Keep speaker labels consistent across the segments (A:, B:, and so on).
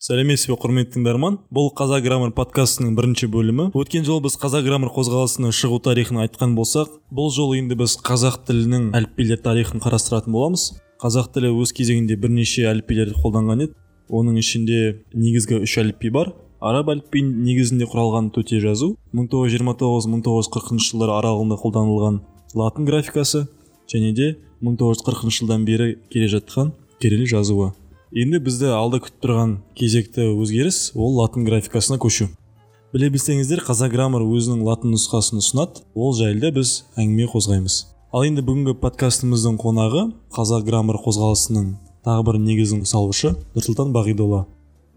A: Сәлеметсіз бе, құрметті тыңдарман. Бұл Қазақ Граммар подкастының бірінші бөлімі. Өткен жолы біз Қазақ Граммар қозғалысының шығу тарихын айтқан болсақ, бұл жолы енді біз қазақ тілінің әліпбилер тарихын қарастыратын боламыз. Қазақ тілі өз кезегінде бірнеше әліпбилерді қолданған еді. Оның ішінде негізгі 3 әліпби бар. Араб әліпбиін негізінде құралған төте жазу, 1929-1940 жылдар аралығында қолданылған латын графикасы және де 1940 жылдан бері келе жатқан кирилл жазуы. Енді бізді алда күтіп тұрған кезекті өзгеріс ол латын графикасына көшу. Біле білсеңіздер, Қазақ Граммар өзінің латын нұсқасын ұсынады, ол жайлы біз әңгіме қозғаймыз. Ал енді бүгінгі подкастымыздың қонағы Қазақ Граммар қозғалысының тағы бір негізін салушы Нұрсұлтан Бағидолла.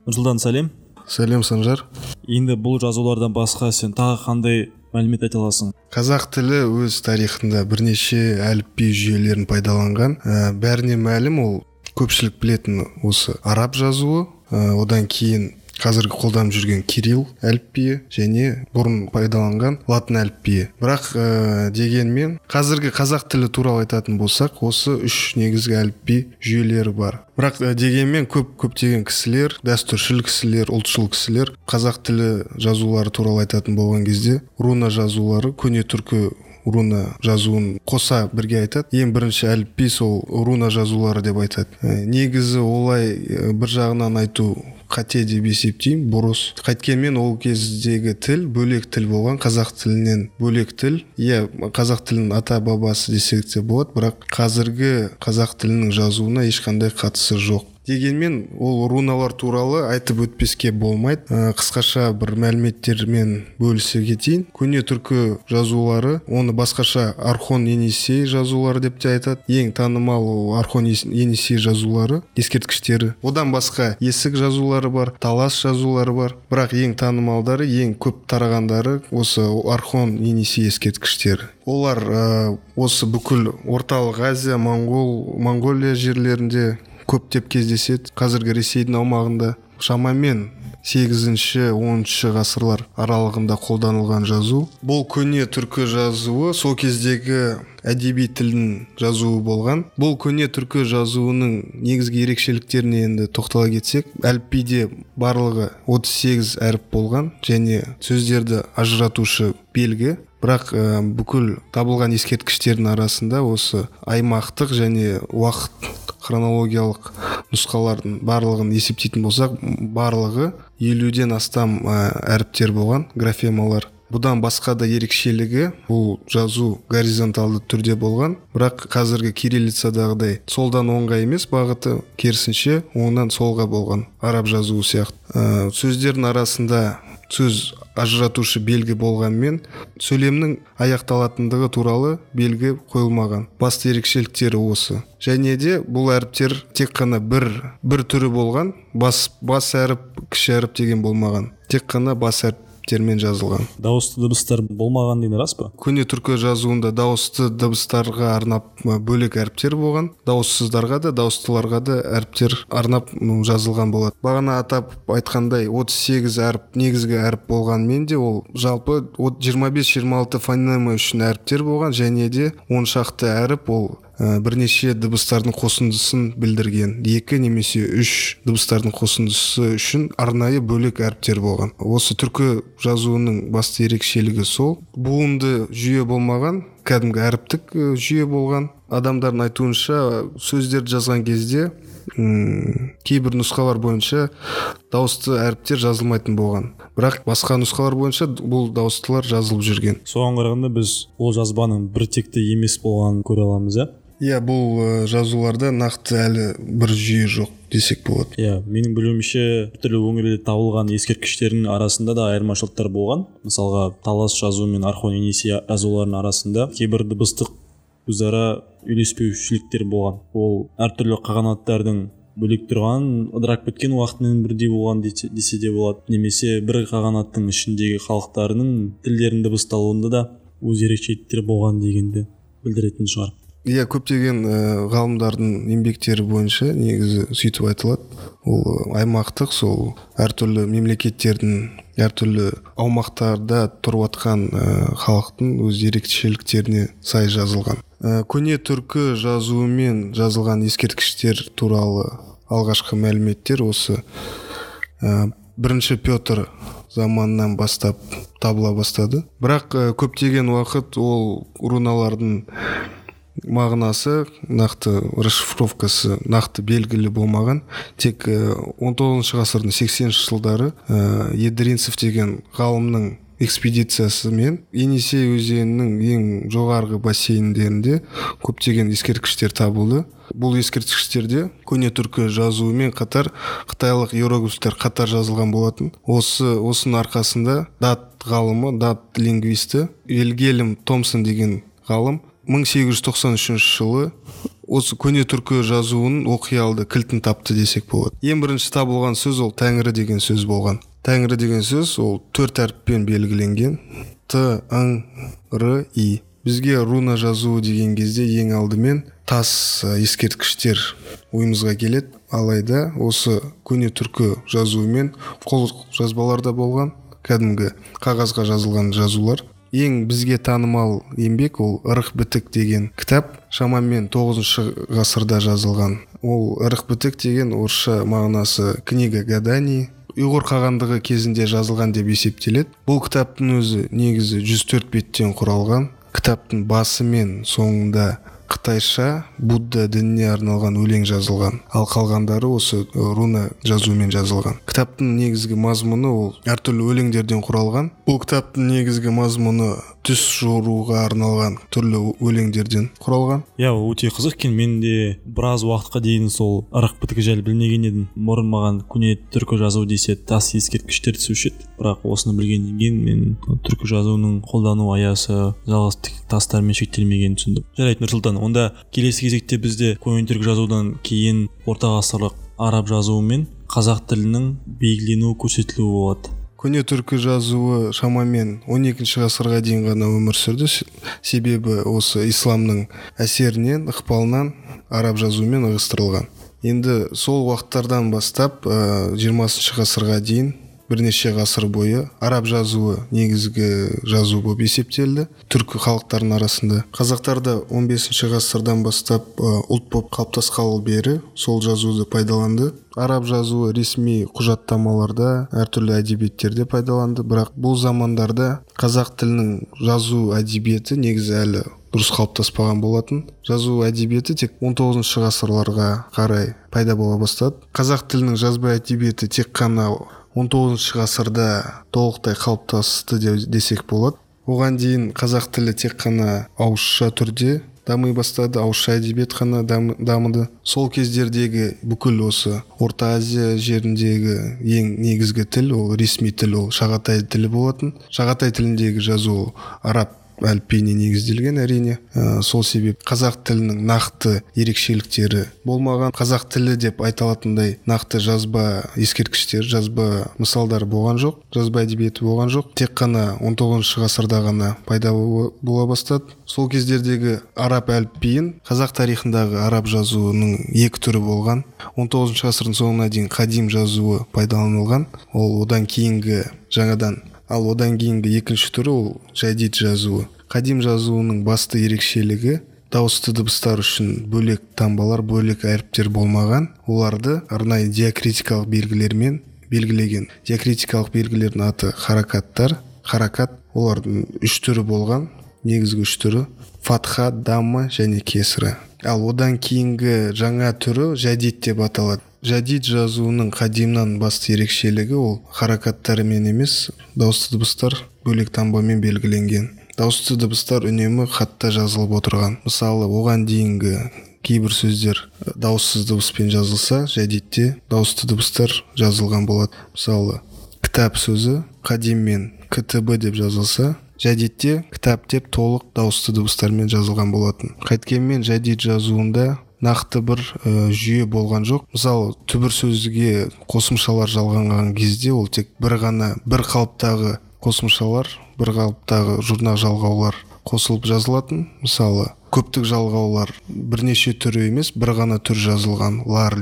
A: Нұрсұлтан, сәлем.
B: Сәлем, Санжар.
A: Енді бұл жазулардан басқа сен тағы қандай мәлімет айта аласың?
B: Қазақ тілі өз тарихында бірнеше әліпби жүйелерін пайдаланған. Бәріне мәлім, ол көпшілік білетін осы араб жазуы, одан кейін қазіргі қолданып жүрген кирилл әліпбиі және бұрын пайдаланған латын әліпбиі. Бірақ дегенмен қазіргі қазақ тілі туралы айтатын болсақ, осы 3 негізгі әліпби жүйелері бар. Бірақ дегенмен көптеген кісілер, дәстүршіл кісілер, ұлтшыл кісілер қазақ тілі жазулары туралы айтатын болған кезде руна жазулары, көне түркі руна жазуын қоса бірге айтады. Ең бірінші әліпби сол руна жазулары деп айтады. Негізі олай бір жағынан айту қате деп есептеймін, бұрыс. Қайткенмен ол кездегі тіл бөлек тіл болған, қазақ тілінен бөлек тіл. Қазақ тілінің ата бабасы десек те болады, бірақ қазіргі қазақ тілінің жазуына ешқандай қатысы жоқ. Дегенмен ол руналар туралы айтып өтпеске болмайды. Қысқаша бір мәліметтермен бөлісе кетейін. Көне түркі жазулары, оны басқаша Орхон Енисей жазулары деп те айтады. Ең танымал ол Орхон Енисей жазулары, ескерткіштері. Одан басқа есік жазулары бар, талас жазулары бар. Бірақ ең танымалдары, ең көп тарағандары осы Орхон Енисей ескерткіштері. Олар осы бүкіл Орталық Азия, Монголия жерлерінде көптеп кездеседі. Қазіргі Ресейдің аумағында шамамен 8-10 ғасырлар аралығында қолданылған жазу. Бұл көне түркі жазуы сол кездегі әдеби тілдің жазуы болған. Бұл көне түркі жазуының негізгі ерекшеліктеріне енді тоқтала кетсек, әліпбиде барлығы 38 әріп болған және сөздерді ажыратушы белгі. Бірақ бүкіл табылған ескерткіштердің арасында осы аймақтық және уақыт хронологиялық нұсқалардың барлығын есептейтін болсақ, барлығы 50-ден астам әріптер болған, графемалар. Бұдан басқа да ерекшелігі, бұл жазу горизонталды түрде болған, бірақ қазіргі кириллицадағыдай солдан оңға емес, бағыты керісінше оңнан солға болған, араб жазуы сияқты. Сөздердің арасында сөз ажыратушы белгі болғанмен, сөйлемнің аяқталатындығы туралы белгі қойылмаған. Басты ерекшеліктері осы. Және де бұл әріптер тек қана бір түрі болған, бас әріп, кіші әріп деген болмаған. Тек қана бас әріптермен жазылған.
A: Дауысты дыбыстар болмаған деген рас па?
B: Көне түркі жазуында дауысты дыбыстарға арнап бөлек әріптер болған, дауыссыздарға да, дауыстыларға да әріптер арнап жазылған болады. Бағана атап айтқандай 38 әріп, негізгі әріп болғанмен де ол жалпы 25-26 фонема үшін әріптер болған және де 10 шақты әріп ол бірнеше дыбыстардың қосындысын білдірген. 2 немесе 3 дыбыстардың қосындысы үшін арнайы бөлек әріптер болған. Осы түркі жазуының басты ерекшелігі сол. Буынды жүйе болмаған, кәдімгі әріптік жүйе болған. Адамдардың айтуынша сөздерді жазған кезде кейбір нұсқалар бойынша дауысты әріптер жазылмайтын болған. Бірақ басқа нұсқалар бойынша бұл дауыстылар жазылып жүрген.
A: Соған қарағанда біз ол жазбаның бір текті емес болғанын көре аламыз,
B: бұл жазуларда нақты әлі бір жүйе жоқ десек болады.
A: Менің білуімше түрлі өңірлерде табылған ескерткіштердің арасында да айырмашылықтар болған. Мысалға, талас жазуы мен Орхон Енисей жазуларының арасында кейбір дыбыстық өзара үйлеспеушіліктер болған. Ол әртүрлі қағанаттардың бөлек тұрған, ыдырап кеткен уақытымен бірдей болған десе де болады. Немесе бір қағанаттың ішіндегі халықтарының тілдерінің дыбысталуында да өз ерекшеліктері болған дегенді білдіретін шығар.
B: Көптеген ғалымдардың еңбектері бойынша негізі сөйтіп айтылады. Ол аймақтық, сол әртүрлі мемлекеттердің әртүрлі аумақтарда тұрып атқан халықтың өз ерекшеліктеріне сай жазылған. Көне түркі жазуымен жазылған ескерткіштер туралы алғашқы мәліметтер осы бірінші Петр заманынан бастап табыла бастады. Бірақ көптеген уақыт ол руналардың мағынасы, нақты расшифровкасы нақты белгілі болмаған. Тек 19 ғасырдың 80-ші жылдары Едринцев деген ғалымның экспедициясымен Енисей өзенінің ең жоғарғы бассейндерінде көптеген ескерткіштер табылды. Бұл ескерткіштерде көне түркі жазуымен қатар қытайлық иероглифтер қатар жазылған болатын. Осының арқасында дат ғалымы, дат лингвисті Вильгельм Томсон деген ғалым 1893 жылы осы көне түркі жазуының оқи алды кілтін тапты десек болады. Ең бірінші табылған сөз ол Тәңірі деген сөз болған. Тәңірі деген сөз ол 4 әріппен белгіленген. Т, Ң, Р, И. Бізге руна жазуы деген кезде ең алдымен тас ескерткіштер ойымызға келеді. Алайда осы көне түркі жазуымен қол жазбаларда болған, кәдімгі қағазға жазылған жазулар. Ең бізге танымал еңбек ол Ырық бітік деген кітап, шамамен 9 ғасырда жазылған. Ол Ырық бітік деген орысша мағынасы книга гаданий, ұйғыр қағандығы кезінде жазылған деп есептеледі. Бұл кітаптың өзі негізі 104 беттен құралған. Кітаптың басы мен соңында қытайша Будда дініне арналған өлең жазылған, ал қалғандары осы руна жазуымен жазылған. Кітаптың негізгі мазмұны ол әртүрлі өлеңдерден құралған. Бұл кітаптың негізгі мазмұны түс жоруға арналған түрлі өлеңдерден құралған.
A: Өте қызық екен. Мен де біраз уақытқа дейін сол ырық бітігі жайлы білмеген едім. Бұрын маған көне түркі жазу десе тас ескерткіштер түсуші еді. Бірақ осыны білгеннен кейін мен түркі жазуының қолдану аясы жалғыз тастармен шектелмегенін түсіндім. Жарайды, Нұрсұлтан, онда келесі кезекте бізде көне түркі жазудан кейін орта ғасырлық араб жазуы мен қазақ тілінің белгіленуі көрсетілуі болады.
B: Көне түркі жазуы шамамен 12 ғасырға дейін ғана өмір сүрді. Себебі осы исламның әсерінен, ықпалынан араб жазуымен ығыстырылған. Енді сол уақыттардан бастап 20 ғасырға дейін бірнеше ғасыр бойы араб жазуы негізгі жазу болып есептелді түркі халықтарының арасында. Қазақтарда 15 ғасырдан бастап ұлт болып қалыптасқалы бері сол жазуды пайдаланды. Араб жазуы ресми құжаттамаларда, әртүрлі әдебиеттерде пайдаланды, бірақ бұл замандарда қазақ тілінің жазу әдебиеті негізі әлі дұрыс қалыптаспаған болатын. Жазу әдебиеті тек 19 ғасырларға қарай пайда бола бастады. Қазақ тілінің жазба әдебиеті тек қана 19 ғасырда толықтай қалыптасты десек болады. Оған дейін қазақ тілі тек қана ауызша түрде дами бастады, ауызша әдебиет қана дамыды. Сол кездердегі бүкіл осы Орта Азия жеріндегі ең негізгі тіл ол ресми тіл, ол шағатай тілі болатын. Шағатай тіліндегі жазу араб әліпбиіне негізделген, әрине. Сол себеп қазақ тілінің нақты ерекшеліктері болмаған. Қазақ тілі деп айталатындай нақты жазба ескерткіштер, жазба мысалдар болған жоқ, жазба әдебиеті болған жоқ. Тек қана 19 ғасырда ғана пайда бола бастады. Сол кездердегі араб әліпбиін қазақ тарихындағы араб жазуының екі түрі болған. 19 ғасырдың соңына дейін қадим жазуы пайдаланылған. Ол одан кейінгі жаңадан. Ал одан кейінгі екінші түрі ол жәдид жазуы. Қадим жазуының басты ерекшелігі дауысты дыбыстар үшін бөлек таңбалар, бөлек әріптер болмаған. Оларды арнайы диакритикалық белгілермен белгілеген. Диакритикалық белгілердің аты харакаттар. Харакат олардың үш түрі болған. Негізгі үш түрі фатха, дамма және кесірі. Ал одан кейінгі жаңа түрі жәдид деп аталады. Жәдид жазуының қадимнан басты ерекшелігі ол харакаттарымен емес, дауысты дыбыстар бөлек таңбамен белгіленген. Дауысты дыбыстар үнемі хатта жазылып отырған. Мысалы, оған дейінгі кейбір сөздер дауыссыз дыбыспен жазылса, жәдидте дауысты дыбыстар жазылған болады. Мысалы, кітап сөзі қадиммен КТБ деп жазылса, жәдидте кітап деп толық дауысты дыбыстармен жазылған болатын. Қайткенмен жәдид жазуында нақты бір жүйе болған жоқ. Мысалы, түбір сөзге қосымшалар жалғанған кезде ол тек бір қалыптағы қосымшалар, бір қалыптағы жұрнақ жалғаулар қосылып жазылатын. Мысалы, көптік жалғаулар бірнеше түрі емес, бір ғана түр жазылған. Лар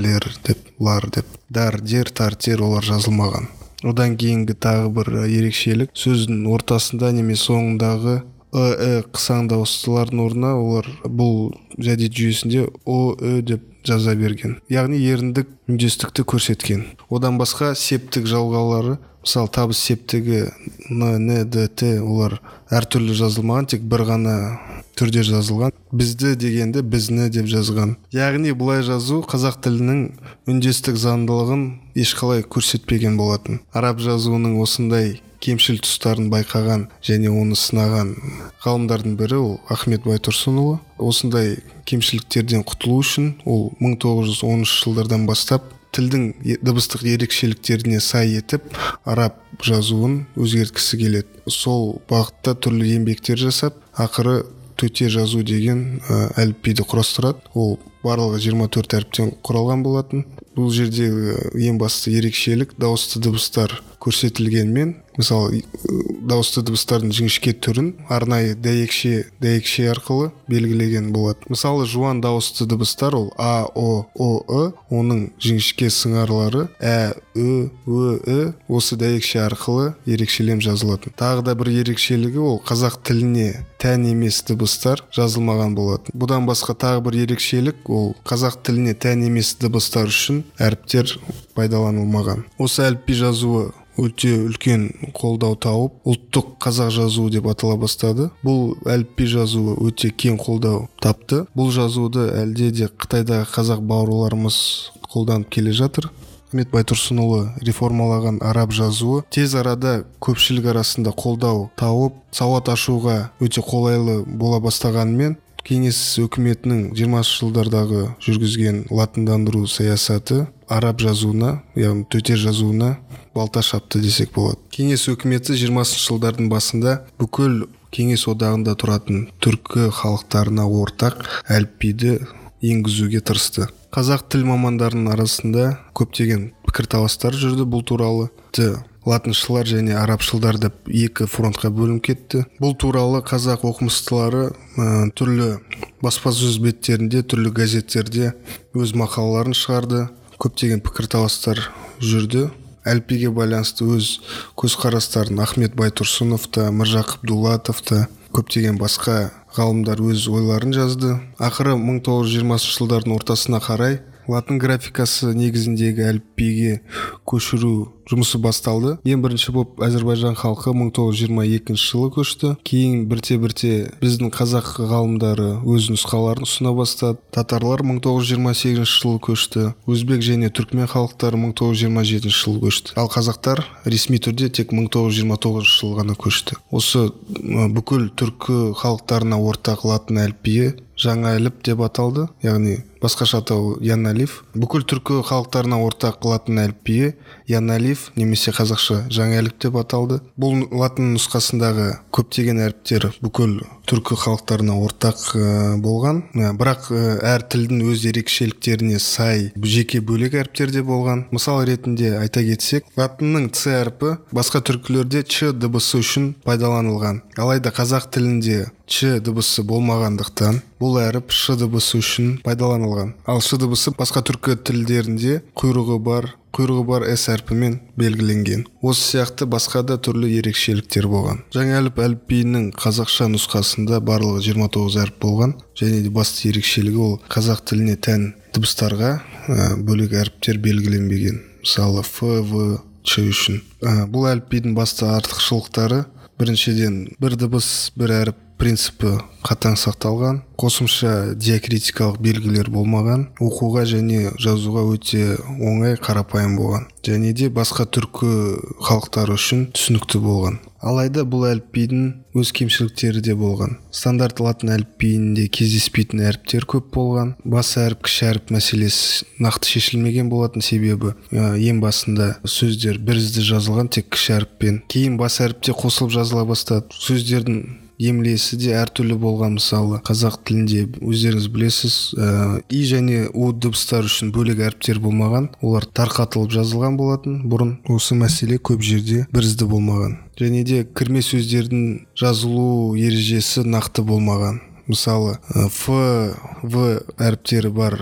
B: деп. Дар, дер, тар, тер олар жазылмаған. Одан кейінгі тағы бір ерекшелік сөздің ортасында немесе соңындағы қысаң дауыстылардың орнына олар бұл жәдет жүйесінде деп жаза берген, яғни еріндік үндестікті көрсеткен. Одан басқа септік жалғаулары, мысалы табыс септігі н, д, т олар әртүрлі жазылмаған, тек бір ғана түрде жазылған. Бізді дегенде бізні деп жазған. Яғни бұлай жазу қазақ тілінің үндестік заңдылығын ешқалай көрсетпеген болатын. Араб жазуының осындай кемшіл тұстарын байқаған және оны сынаған ғалымдардың бірі ол Ахмет Байтұрсынұлы. Осындай кемшіліктерден құтылу үшін ол 1910 жылдардан бастап тілдің дыбыстық ерекшеліктеріне сай етіп араб жазуын өзгерткісі келеді. Сол бағытта түрлі еңбектер жасап, ақыры төте жазу деген әліпбиді құрастырады. Ол барлығы 24 әріптен құралған болатын. Бұл жерде ең басты ерекшелік дауысты дыбыстар көрсетілгенмен, мысалы дауысты дыбыстардың жіңішке түрін арнайы дәйекше арқылы белгілеген болады. Мысалы жуан дауысты дыбыстар ол а, о, ы, оның жіңішке сыңарлары ә, ө, осы дәйекше арқылы ерекшелем жазылатын. Тағы да бір ерекшелігі ол қазақ тіліне тән емес дыбыстар жазылмаған болатын. Бұдан басқа тағы бір ерекшелік ол қазақ тіліне тән емес дыбыстар үшін әріптер пайдаланылмаған. Осы әліпби жазуы өте үлкен қолдау тауып, ұлттық қазақ жазуы деп атала бастады. Бұл әліпби жазуы өте кең қолдау тапты. Бұл жазуды әлде де Қытайдағы қазақ бауырларымыз қолданып келе жатыр. Ахмет Байтұрсынұлы реформалаған араб жазуы тез арада көпшілік арасында қолдау тауып, сауат ашуға өте қолайлы бола бастағанымен, Кеңес өкіметінің 20 жылдардағы жүргізген латындандыру саясаты араб жазуына, яғни төте жазуына балта шапты десек болады. Кеңес өкіметі 20 жылдардың басында бүкіл Кеңес одағында тұратын түркі халықтарына ортақ әліпбиді енгізуге тырысты. Қазақ тіл мамандарының арасында көптеген пікірталастар жүрді бұл туралы. Латыншылар және арабшылдар деп екі фронтқа бөлініп кетті. Бұл туралы қазақ оқымыстылары түрлі баспасөз беттерінде, түрлі газеттерде өз мақалаларын шығарды. Көптеген пікірталастар жүрді. Әліпбиге байланысты өз көзқарастарын Ахмет Байтұрсынов та, Міржақып Дулатов та, көптеген басқа ғалымдар өз ойларын жазды. Ақыры 1920 жылдардың ортасына қарай латын графикасы негізіндегі әліпбиге көшіру жұмысы басталды. Ең бірінші болып Әзербайжан халқы 1922 жылы көшті. Кейін бірте-бірте біздің қазақ ғалымдары өз нұсқаларын ұсына бастады. Татарлар 1928 жылы көшті. Өзбек және түркмен халықтары 1927 жылы көшті. Ал қазақтар ресми түрде тек 1929 жылы ғана көшті. Осы бүкіл түркі халықтарына ортақ латын әліпбиі жаңа әліп деп аталды, яғни басқаша атау Яналиф. Бүкіл түркі халықтарына ортақ латын әліпбиі Яналиф немесе қазақша жаңа әліп деп аталды. Бұл латын нұсқасындағы көптеген әріптер бүкіл түркі халықтарына ортақ болған, бірақ әр тілдің өз ерекшеліктеріне сай жеке бөлек әріптер де болған. Мысал ретінде айта кетсек, латынның ц әрпі басқа түркілерде ч дыбысы үшін пайдаланылған. Алайда қазақ тілінде ч дыбысы болмағандықтан бұл әріп ш дыбысы үшін пайдаланылған. Ал ш дыбысы басқа түркі тілдерінде құйрығы бар с әрпімен белгіленген. Осы сияқты басқа да түрлі ерекшеліктер болған. Жаңа әліпбиінің қазақша нұсқасында барлығы 29 әріп болған, және де басты ерекшелігі ол қазақ тіліне тән дыбыстарға бөлек әріптер белгіленбеген. Мысалы ф, в, ч үшін. Бұл әліпбидің басты артықшылықтары: біріншіден, бір дыбыс, бір әріп принципі қатаң сақталған, қосымша диакритикалық белгілер болмаған, оқуға және жазуға өте оңай, қарапайым болған, және де басқа түркі халықтары үшін түсінікті болған. Алайда бұл әліпбидің өз кемшіліктері де болған. Стандарт латын әліпбиінде кездеспейтін әріптер көп болған. Бас әріп, кіші әріп мәселесі нақты шешілмеген болатын, себебі ең басында сөздер бірізді жазылған тек кіші әріппен. Кейін бас әріпте қосылып жазыла бастады. Сөздердің емлесі де әртүрлі болған. Мысалы қазақ тілінде өздеріңіз білесіз, и және у дыбыстар үшін бөлек әріптер болмаған, олар тарқатылып жазылған болатын. Бұрын осы мәселе көп жерде бірізді болмаған. Және де кірме сөздердің жазылу ережесі нақты болмаған. мысалы ф в әріптері бар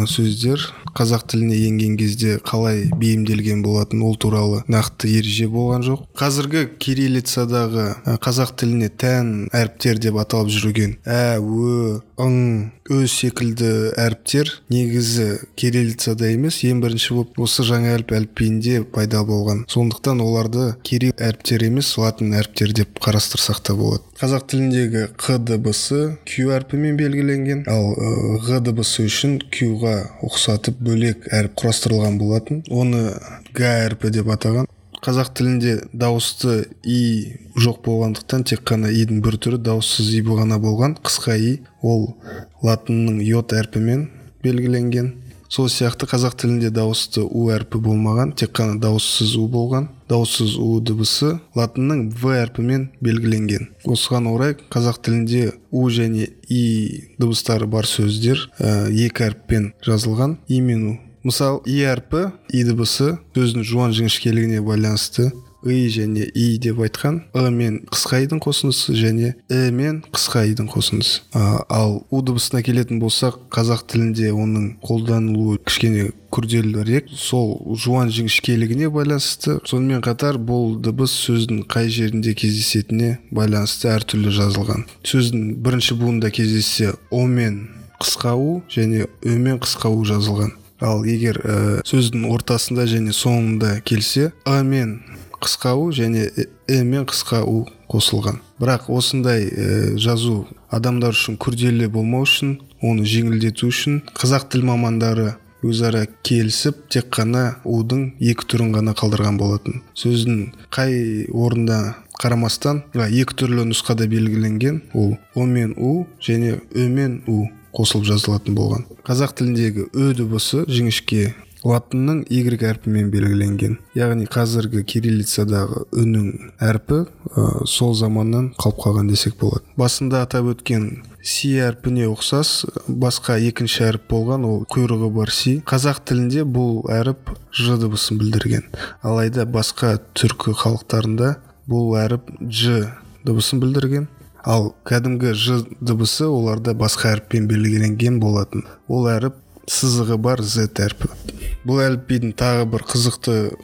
B: сөздер қазақ тіліне енген кезде қалай бейімделген болатын, ол туралы нақты ереже болған жоқ. Қазіргі кириллицадағы қазақ тіліне тән әріптер деп аталып жүрген ә, ө, ың, өз секілді әріптер негізі кириллицада емес, ең бірінші болып осы жаңа әліпбиінде пайда болған. Сондықтан оларды кирилл әріптері емес, латын әріптері деп қарастырсақ та болады. Қазақ тіліндегі қ дыбысы q әрпімен белгіленген, ал ғ дыбысы үшін q-ға ұқсатып бөлек әріп құрастырылған болатын. Оны г әрпі деп атаған. Қазақ тілінде дауысты и жоқ болғандықтан тек қана идің бір түрі дауыссыз и ғана болған, қысқа и, ол латынның йод әрпімен белгіленген. Сол сияқты қазақ тілінде дауысты у әрпі болмаған, тек қана дауыссыз у болған. Дауыссыз у дыбысы латынның в әрпімен белгіленген. Осыған орай қазақ тілінде у және и дыбыстары бар сөздер екі әріппен жазылған, и мен у. Мысалы, и әрпі, и дыбысы сөздің жуан жіңішкелігіне байланысты и және и деп айтқан, мен қысқа идің қосындысы және мен қысқа идің қосындысы. Ал у дыбысына келетін болсақ, қазақ тілінде оның қолданылуы кішкене күрделірек, сол жуан жіңішкелігіне байланысты. Сонымен қатар бұл дыбыс сөздің қай жерінде кездесетініне байланысты әртүрлі жазылған. Сөздің бірінші буында кездессе о мен қысқа у және ö мен қысқа у жазылған. Ал егер сөздің ортасында және соңында келсе, мен қысқа у және мен қысқа у қосылған. Бірақ осындай жазу адамдар үшін күрделі болмау үшін, оны жеңілдету үшін қазақ тіл мамандары өзара келісіп тек қана удың екі түрін ғана қалдырған болатын. Сөздің қай орында қарамастан екі түрлі нұсқада белгіленген, ол о мен у және ö мен у қосылып жазылатын болған. Қазақ тіліндегі ö дыбысы жіңішке латынның y әрпімен белгіленген. Яғни қазіргі кириллицадағы үнің әрпі сол заманнан қалып қалған десек болады. Басында атап өткен си әрпіне ұқсас басқа екінші әріп болған, ол құйрығы бар си. Қазақ тілінде бұл әріп ж дыбысын білдірген. Алайда басқа түркі халықтарында бұл әріп ж дыбысын білдірген. Ал кәдімгі ж дыбысы оларда басқа әріппен белгіленген болатын. Ол әріп сызығы бар z әрпі. Бұл әліпбидің тағы бір қызықты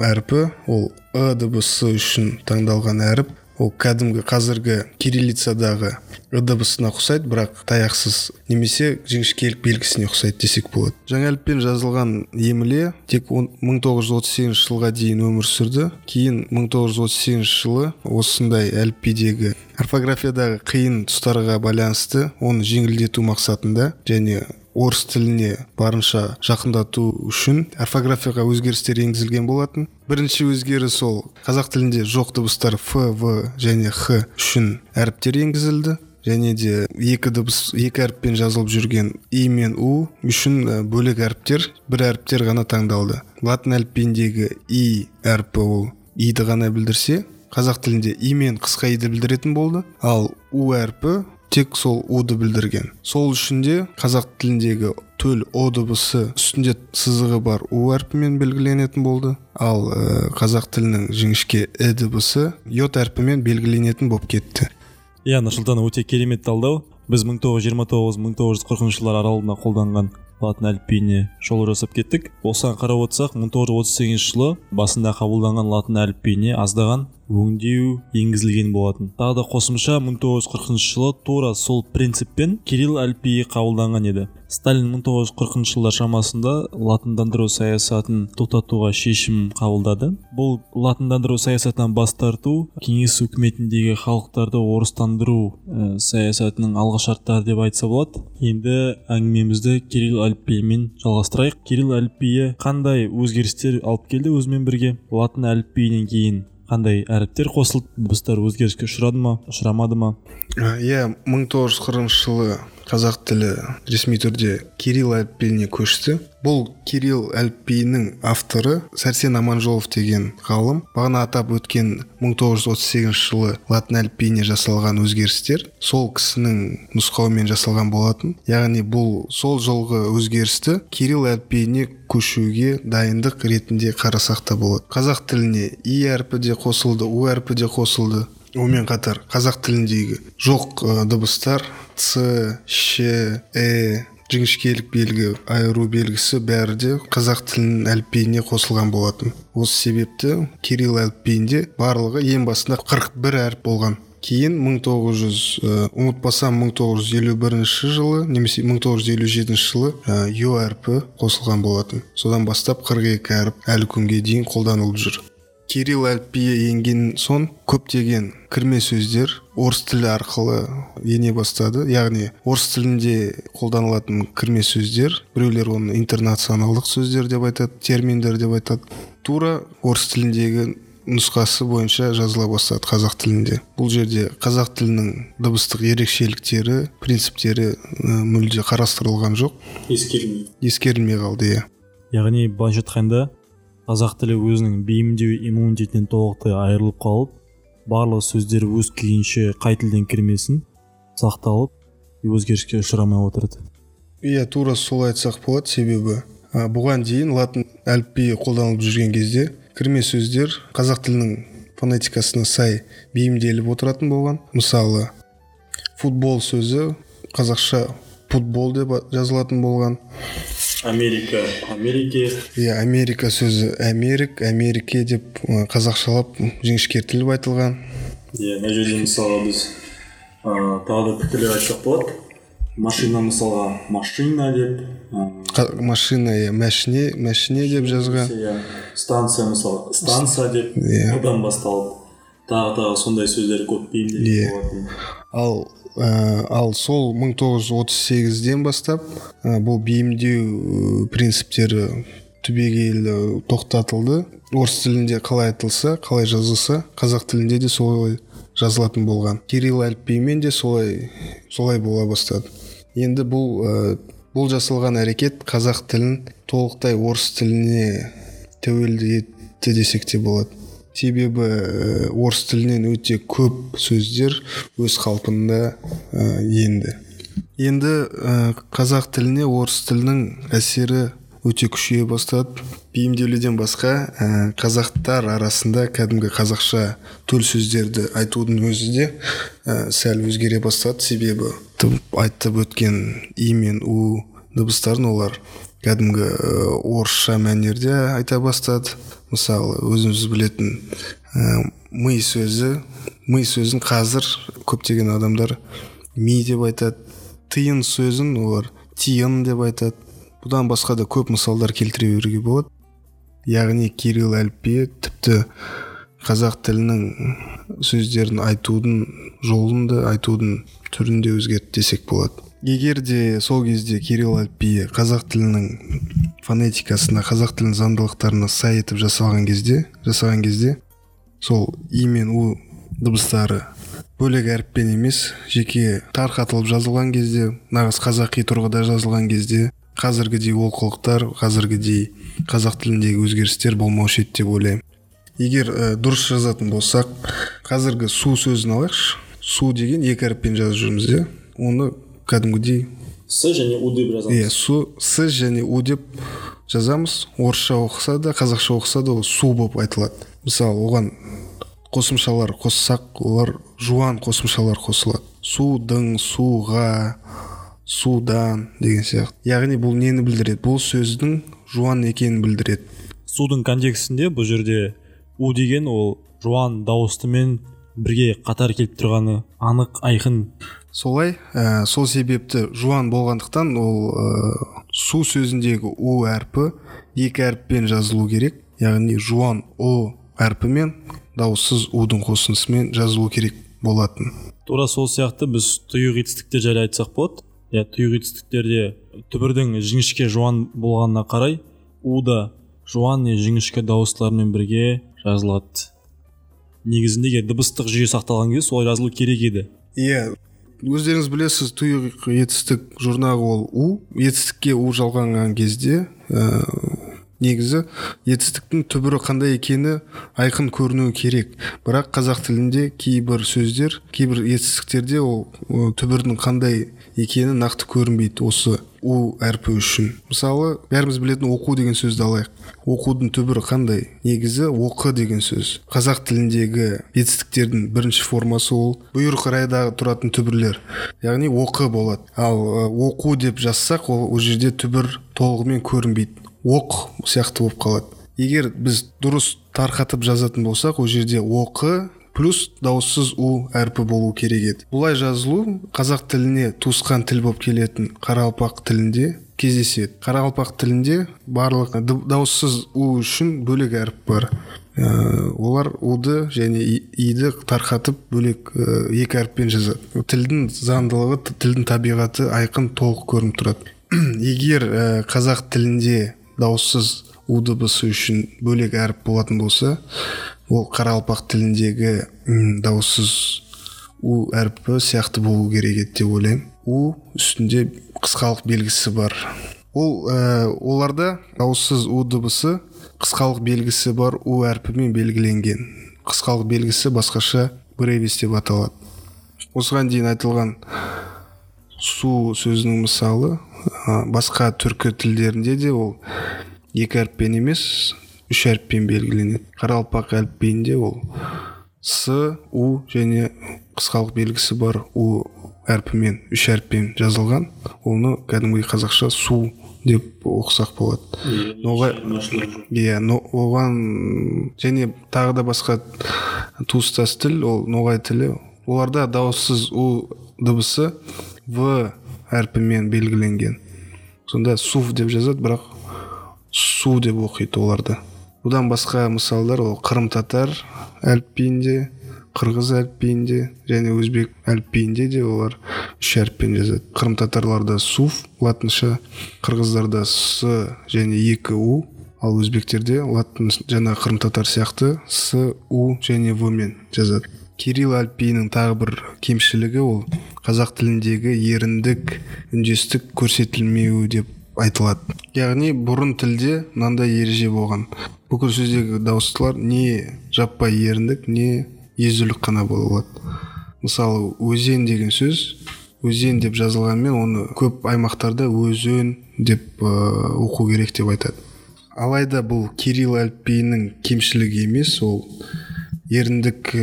B: әрпі, ол дыбысы үшін таңдалған әріп. Ол кәдімгі қазіргі кириллицадағы дыбысына ұқсайды, бірақ таяқсыз немесе жіңішкелік белгісіне ұқсайды десек болады. Жаңа әліппен жазылған емле тек 1938 жылға дейін өмір сүрді. Кейін 1938 жылы осындай әліпбидегі орфографиядағы қиын тұстарға байланысты оны жеңілдету мақсатында және орыс тіліне барынша жақындату үшін орфографияға өзгерістер енгізілген болатын. Бірінші өзгеріс ол қазақ тілінде жоқ дыбыстар ф, в және х үшін әріптер енгізілді. Және де екі әріппен жазылып жүрген и мен у үшін бөлек әріптер, бір әріптер ғана таңдалды. Латын әліпбиіндегі и әрпі ол иді ғана білдірсе, қазақ тілінде и мен қысқа иді білдіретін болды, ал у әрпі тек сол уды білдірген. Сол үшін де қазақ тіліндегі төл о дыбысы үстінде сызығы бар у әрпімен белгіленетін болды, ал қазақ тілінің жіңішке дыбысы йод әрпімен белгіленетін болып кетті.
A: Нұрсұлтан, өте керемет талдау. Біз 1929-1940 жылдар аралығында қолданған латын әліпбиіне жол жасап кеттік. Осыған қарап отырсақ, 1938 жылы басында қабылданған латын әліпбиіне аздаған өңдеу енгізілген болатын. Тағы да қосымша 1940 жылы тура сол принциппен кирилл әліпбиі қабылданған еді. Сталин 1940 жылдар шамасында латындандыру саясатын тоқтатуға шешім қабылдады. Бұл латындандыру саясатынан бас тарту кеңес үкіметіндегі халықтарды орыстандыру саясатының алғышарттары деп айтса болады. Енді әңгімемізді кирилл әліпбиімен жалғастырайық. Кирилл әліпбиі қандай өзгерістер алып келді өзімен бірге? Латын әліпбиінен кейін қандай әріптер қосылып, дыбыстар өзгеріске ұшырады ма, ұшырамады ма?
B: 1940 жылы қазақ тілі ресми түрде кирилл әліпбиіне көшті. Бұл кирилл әліпбиінің авторы Сәрсен Аманжолов деген ғалым. Бағана атап өткен 1938 жылы латын әліпбиіне жасалған өзгерістер сол кісінің нұсқауымен жасалған болатын. Яғни бұл сол жылғы өзгерісті кирилл әліпбиіне көшуге дайындық ретінде қарасақ та болады. Қазақ тіліне и әрпі де қосылды, у әрпі де қосылды. Онымен қатар қазақ тіліндегі жоқ дыбыстар ц, ш, жіңішкелік белгі, айыру белгісі бәрі де қазақ тілінің әліпбиіне қосылған болатын. Осы себепті кирилл әліпбиінде барлығы ең басында 41 әріп болған. Кейін 1951 жылы немесе 1957 жылы ё әрпі қосылған болатын. Содан бастап 42 әріп әлі күнге дейін қолданылып жүр. Кирилл әліпбиі енген соң көптеген кірме сөздер орыс тілі арқылы ене бастады. Яғни орыс тілінде қолданылатын кірме сөздер, біреулер оны интернационалдық сөздер деп айтады, терминдер деп айтады. Тура орыс тіліндегі нұсқасы бойынша жазыла бастады қазақ тілінде. Бұл жерде қазақ тілінің дыбыстық ерекшеліктері, принциптері мүлде қарастырылған жоқ. Ескерілмей қалды, иә.
A: Яғни былайша айтқанда қазақ тілі өзінің бейімдеу иммунитетінен толықтай айырылып қалып, барлық сөздер өз күйінше қай тілден кірмесін сақталып, өзгеріске ұшырамай отырды.
B: Иә, тура солай айтсақ болады, себебі бұған дейін латын әліпбиі қолданылып жүрген кезде кірме сөздер қазақ тілінің фонетикасына сай бейімделіп отыратын болған. Мысалы, футбол сөзі қазақша футбол деп жазылатын болған.
A: Америка
B: Иә, Америка сөзі Америке деп қазақшалап жіңішкертіліп айтылған.
A: Иә, мына жерде мысалға біз тағы да пікірлер айтсақ болады. Машина мысалға машина деп,
B: машина мәшіне деп жазған.
A: Станция мысалға станция деп, одан басталып тағы сондай сөздер көп бейімделген болатын.
B: Ал сол 1938-ден бастап бұл бейімдеу принциптері түбегейлі тоқтатылды. Орыс тілінде қалай айтылса, қалай жазылса, қазақ тілінде де солай жазылатын болған. Кирилл әліпбиімен де солай бола бастады. Енді бұл жасалған әрекет қазақ тілін толықтай орыс тіліне тәуелді етті десек те болады. Себебі орыс тілінен өте көп сөздер өз қалпында енді. Енді қазақ тіліне орыс тілінің әсері өте күшейе бастады. Бейімделуден басқа қазақтар арасында кәдімгі қазақша төл сөздерді айтудың өзі де сәл өзгере бастады. Себебі айтып өткен и мен у дыбыстарын олар кәдімгі орысша мәнерде айта бастады. Мысалы, өзіміз білетін ми сөзін қазір көптеген адамдар ми деп айтады. Тиын сөзін олар тиын деп айтады. Бұдан басқа да көп мысалдар келтіре беруге болады. Яғни кирилл әліпбиі тіпті қазақ тілінің сөздерін айтудың жолында, айтудың түрінде өзгертті десек болады. Егер де сол кезде кирилл әліпбиі қазақ тілінің фонетикасына, қазақ тілінің заңдылықтарына сай етіп жасалған кезде сол и мен у дыбыстары бөлек әріппен емес, жеке тарқатылып жазылған кезде, нағыз қазақи тұрғыда жазылған кезде қазіргідей олқылықтар, қазіргідей қазақ тіліндегі өзгерістер болмаушы еді деп ойлаймын. Егер дұрыс жазатын болсақ, қазіргі су сөзін алайықшы. Су деген екі әріппен жазып жүрміз, де. Оны кәдімгідей
A: с және у деп жазамыз.
B: Иә, с және у деп жазамыз. Орысша оқыса да, қазақша оқыса да ол су болып айтылады. Мысалы, оған қосымшалар қоссақ, олар жуан қосымшалар қосылады. Судың, суға, судан деген сияқты. Яғни бұл нені білдіреді? Бұл сөздің жуан екенін білдіреді.
A: Судың контекстінде бұл жерде у деген ол жуан дауыстымен бірге қатар келіп тұрғаны анық, айқын.
B: Солай, сол себепті жуан болғандықтан ол су сөзіндегі у әрпі екі әріппен жазылу керек. Яғни жуан о әрпімен дауыссыз удың қосындысымен жазылу керек болатын.
A: Тура сол сияқты біз тұйық етістіктер жайлы айтсақ болады. Тұйық етістіктерде түбірдің жіңішке жуан болғанына қарай у да жуан не жіңішке дауыстылармен бірге жазылады. Негізінде дыбыстық жүйе сақталған кезде солай жазылу керек еді.
B: Иә, өздеріңіз білесіз, тұйық етістік жұрнағы ол у. Етістікке у жалғанған кезде негізі етістіктің түбірі қандай екені айқын көрінуі керек. Бірақ қазақ тілінде кейбір сөздер, кейбір етістіктерде ол түбірдің қандай екені нақты көрінбейді осы у әрпі үшін. Мысалы бәріміз білетін оқу деген сөзді алайық. Оқудың түбірі қандай? Негізі оқы деген сөз. Қазақ тіліндегі етістіктердің бірінші формасы ол бұйрық райдағы тұратын түбірлер, яғни оқы болады. Ал оқу деп жазсақ, ол жерде түбір толығымен көрінбейді, оқ сияқты болып қалады. Егер біз дұрыс тарқатып жазатын болсақ, ол жерде оқы плюс дауыссыз у әрпі болу керек еді. Бұлай жазылу қазақ тіліне туысқан тіл болып келетін қарақалпақ тілінде кездеседі. Қарақалпақ тілінде барлық дауыссыз у үшін бөлек әріп бар. Олар уды және иді тарқатып бөлек екі әріппен жазады. Тілдің заңдылығы, тілдің табиғаты айқын толық көрініп тұрады. Егер қазақ тілінде дауыссыз у дыбысы үшін бөлек әріп болатын болса, ол қарақалпақ тіліндегі дауыссыз у әрпі сияқты болу керек еді деп ойлаймын. У үстінде қысқалық белгісі бар. Оларда дауыссыз у дыбысы қысқалық белгісі бар у әрпімен белгіленген. Қысқалық белгісі басқаша бревис деп аталады. Осыған дейін айтылған су сөзінің мысалы басқа түркі тілдерінде де ол екі әріппен емес, үш әріппен белгіленеді. Қарақалпақ әліпбиінде ол с, у және қысқалық белгісі бар у әрпімен үш әріппен жазылған. Оны кәдімгі қазақша су деп оқысақ болады. Оған және тағы да басқа туыстас тіл, ол ноғай тілі. Оларда дауыссыз у дыбысы в әрпімен белгіленген. Сонда сув деп жазады, бірақ су деп оқиды оларды. Бұдан басқа мысалдар ол қырым татар әліпбиінде, қырғыз әліпбиінде және өзбек әліпбиінде де олар үш әріппен жазады. Қырым татарларда сув латынша, қырғыздарда с және екі у, ал өзбектерде латын жаңа қырым татар сияқты с, у және в мен жазады. Кирилл әліпбиінің тағы бір кемшілігі ол қазақ тіліндегі еріндік, үндестік көрсетілмеуі деп айтылады. Яғни бұрын тілде мынандай ереже болған. Бүкіл сөздегі дауыстылар не жаппай еріндік, не езулік қана болады. Мысалы, өзен деген сөз, өзен деп жазылғанмен оны көп аймақтарда өзен деп оқу керек деп айтады. Алайда бұл Кирилл әліпбиінің кемшілігі емес, ол еріндік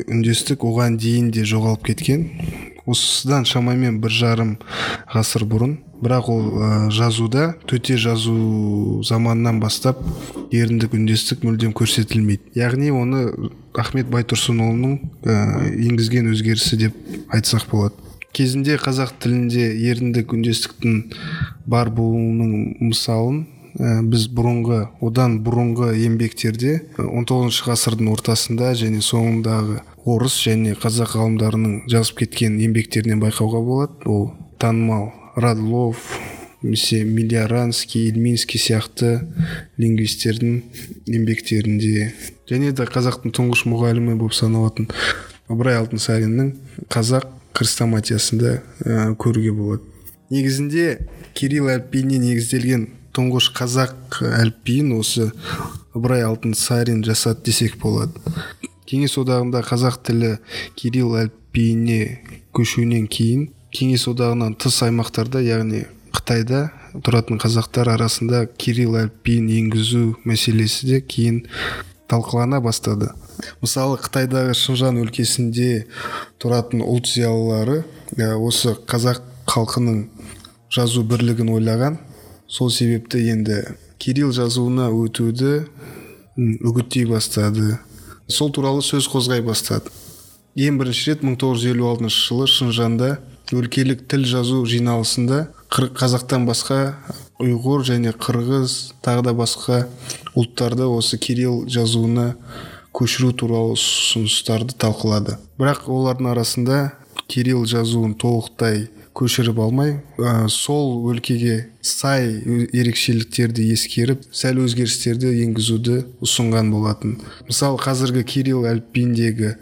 B: үндестік оған дейін де жоғалып кеткен. Осыдан шамамен 1,5 ғасыр бұрын, бірақ ол жазуда, төте жазу заманынан бастап еріндік үндестік мүлдем көрсетілмейді. Яғни оны Ахмет Байтұрсынұлының енгізген өзгерісі деп айтсақ болады. Кезінде қазақ тілінде еріндік үндестіктің бар болуының мысалын біз одан бұрынғы еңбектерде 19 ғасырдың ортасында және соңындағы орыс және қазақ ғалымдарының жазып кеткен еңбектерінен байқауға болады. Ол танымал Радлов, Милиаранский, Ильминский сияқты лингвистердің еңбектерінде және де қазақтың тұңғыш мұғалімі болып саналатын Ыбырай Алтынсариннің қазақ хрестоматиясында көруге болады. Негізінде Кирилл әліпбиіне негізделген тұңғыш қазақ әліпбиін осы Ыбырай Алтынсарин жасады десек болады. Кеңес одағында қазақ тілі Кирилл әліпбиіне көшуінен кейін Кеңес одағынан тыс аймақтарда, яғни Қытайда тұратын қазақтар арасында Кирилл әліпбиін енгізу мәселесі де кейін талқылана бастады. Мысалы, Қытайдағы Шыңжаң өлкесінде тұратын ұлт зиялылары осы қазақ халқының жазу бірлігін ойлаған. Сол себепті енді Кирилл жазуына өтуді үгіттей бастады. Сол туралы сөз қозғай бастады. Ең бірінші рет 1956 жылы Шыңжаңда өлкелік тіл жазу жиналысында қазақтан басқа ұйғыр және қырғыз тағы да басқа ұлттарды осы Кирилл жазуына көшіру туралы ұсыныстарды талқылады. Бірақ олардың арасында Кирилл жазуын толықтай көшіріп алмай, сол өлкеге сай ерекшеліктерді ескеріп, сәл өзгерістерді енгізуді ұсынған болатын. Мысалы, қазіргі Кирилл әліпбиіндегі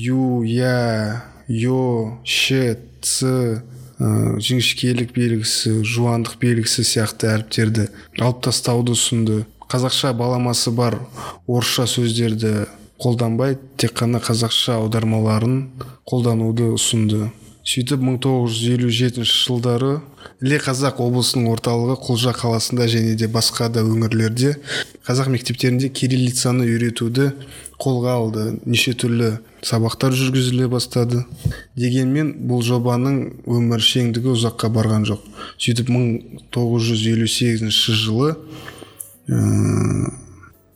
B: ю, я, йо, ш, ц, жіңішкелік белгісі, жуандық белгісі сияқты әріптерді алып тастауды ұсынды. Қазақша баламасы бар орысша сөздерді қолданбай, тек қана қазақша аудармаларын қолдануды ұсынды. сөйтіп 1957 жылдары іле қазақ облысының орталығы Құлжа қаласында және де басқа да өңірлерде қазақ мектептерінде кириллицаны үйретуді қолға алды. Неше түрлі сабақтар жүргізіле бастады. Дегенмен бұл жобаның өміршеңдігі ұзаққа барған жоқ. Сөйтіп 1958 жылы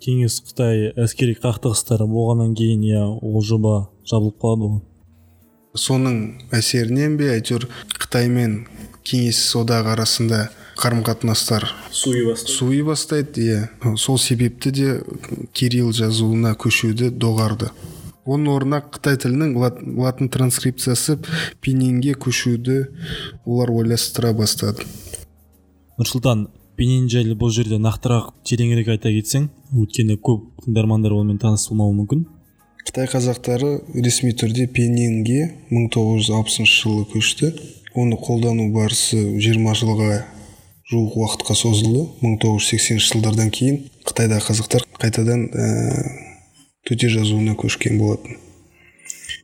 A: Кеңес Қытай әскери қақтығыстары болғаннан кейін ол жоба жабылып қалады ғой.
B: Соның әсерінен бе әйтеуір Қытай мен Кеңес одағы арасында қарым-қатынастар суи бастайды. Сол себепті де кирилл жазуына көшуді доғарды. Оның орнына Қытай тілінің латын транскрипциясы пиньинге көшуді олар ойластыра бастады.
A: Нұрсұлтан, пиньин жайлы бұл жерде нақтырақ тереңірек айта кетсең, өйткені көп тыңдармандар онымен таныс болмауы мүмкін.
B: Қытай қазақтары ресми түрде пиньинге 1960 жылы көшті. Оны қолдану барысы 20 жылға жуық уақытқа созылды. 1980 жылдардан кейін Қытайда қазақтар қайтадан төте жазуына көшкен болатын.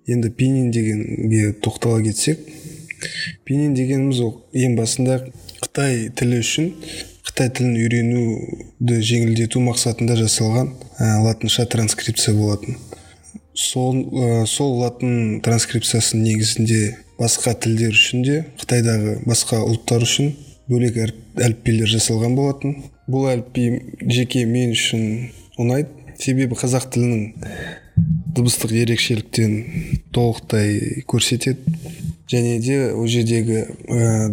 B: Енді пиньин дегенге тоқтала кетсек, пиньин дегеніміз ең басында Қытай тілі үшін Қытай тілін үйренуді жеңілдету мақсатында жасалған латынша транскрипция болатын. Сол латын транскрипциясының негізінде басқа тілдер үшін де Қытайдағы басқа ұлттар үшін бөлек әліппелер жасалған болатын. Бұл әліпби жеке мен үшін ұнайды, себебі қазақ тілінің дыбыстық ерекшеліктерін толықтай көрсетеді. Және де ол жердегі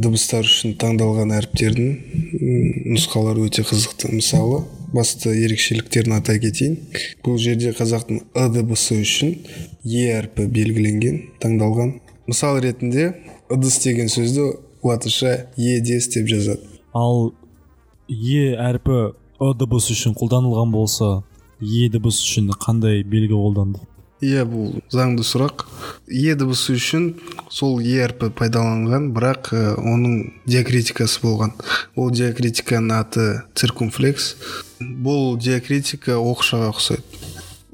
B: дыбыстар үшін таңдалған әріптердің нұсқалары өте қызықты. Мысалы, басты ерекшеліктерін атай кетейін. Бұл жерде қазақтың ы дыбысы үшін е әрпі белгіленген, таңдалған. Мысал ретінде ыдыс деген сөзді латынша едес деп жазады.
A: Ал е әрпі ы дыбысы үшін қолданылған болса, е дыбысы үшін қандай белгі қолданды?
B: Бұл заңды сұрақ. Е дыбысы үшін сол е әрпі пайдаланған, бірақ оның диакритикасы болған. Ол диакритиканың аты циркумфлекс. Бұл диакритика оқшаға ұқсайды.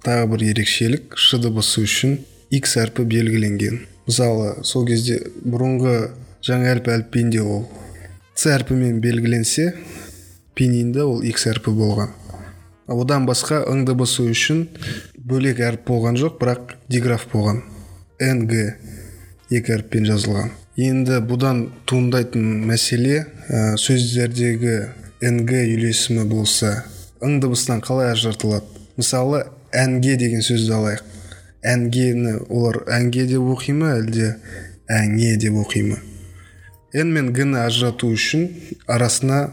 B: Тағы бір ерекшелік, ш дыбысы үшін x әрпі белгіленген. Мысалы, сол кезде бұрынғы жаңа әліпбиінде ол ц әрпімен белгіленсе, пиньинде ол x әрпі болған. Одан басқа ң дыбысы үшін бөлек әріп болған жоқ, бірақ диграф болған. нг екі әріппен жазылған. Енді бұдан туындайтын мәселе, сөздердегі нг үйлесімі болса, ң дыбысынан қалай ажыратылады? Мысалы, әнге деген сөзді алайық. Әнгені олар әнге деп оқи ма, әлде әңе деп оқи ма? Н мен г-ні ажырату үшін арасына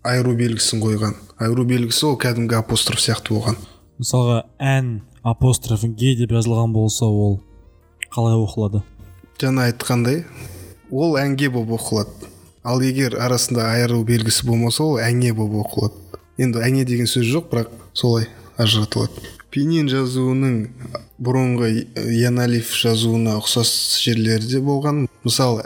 B: айыру белгісін қойған. Айыру белгісі ол кәдімгі апостроф сияқты болған.
A: Мысалға, ән апостроф ге деп жазылған болса, ол қалай оқылады?
B: Жаңа айтқандай, ол әнге болып оқылады. Ал егер арасында айыру белгісі болмаса, ол әңе болып оқылады. Енді әңе деген сөз жоқ, бірақ солай ажыратылады. Пиньин жазуының бұрынғы яналиф жазуына ұқсас жерлерде болған. Мысалы,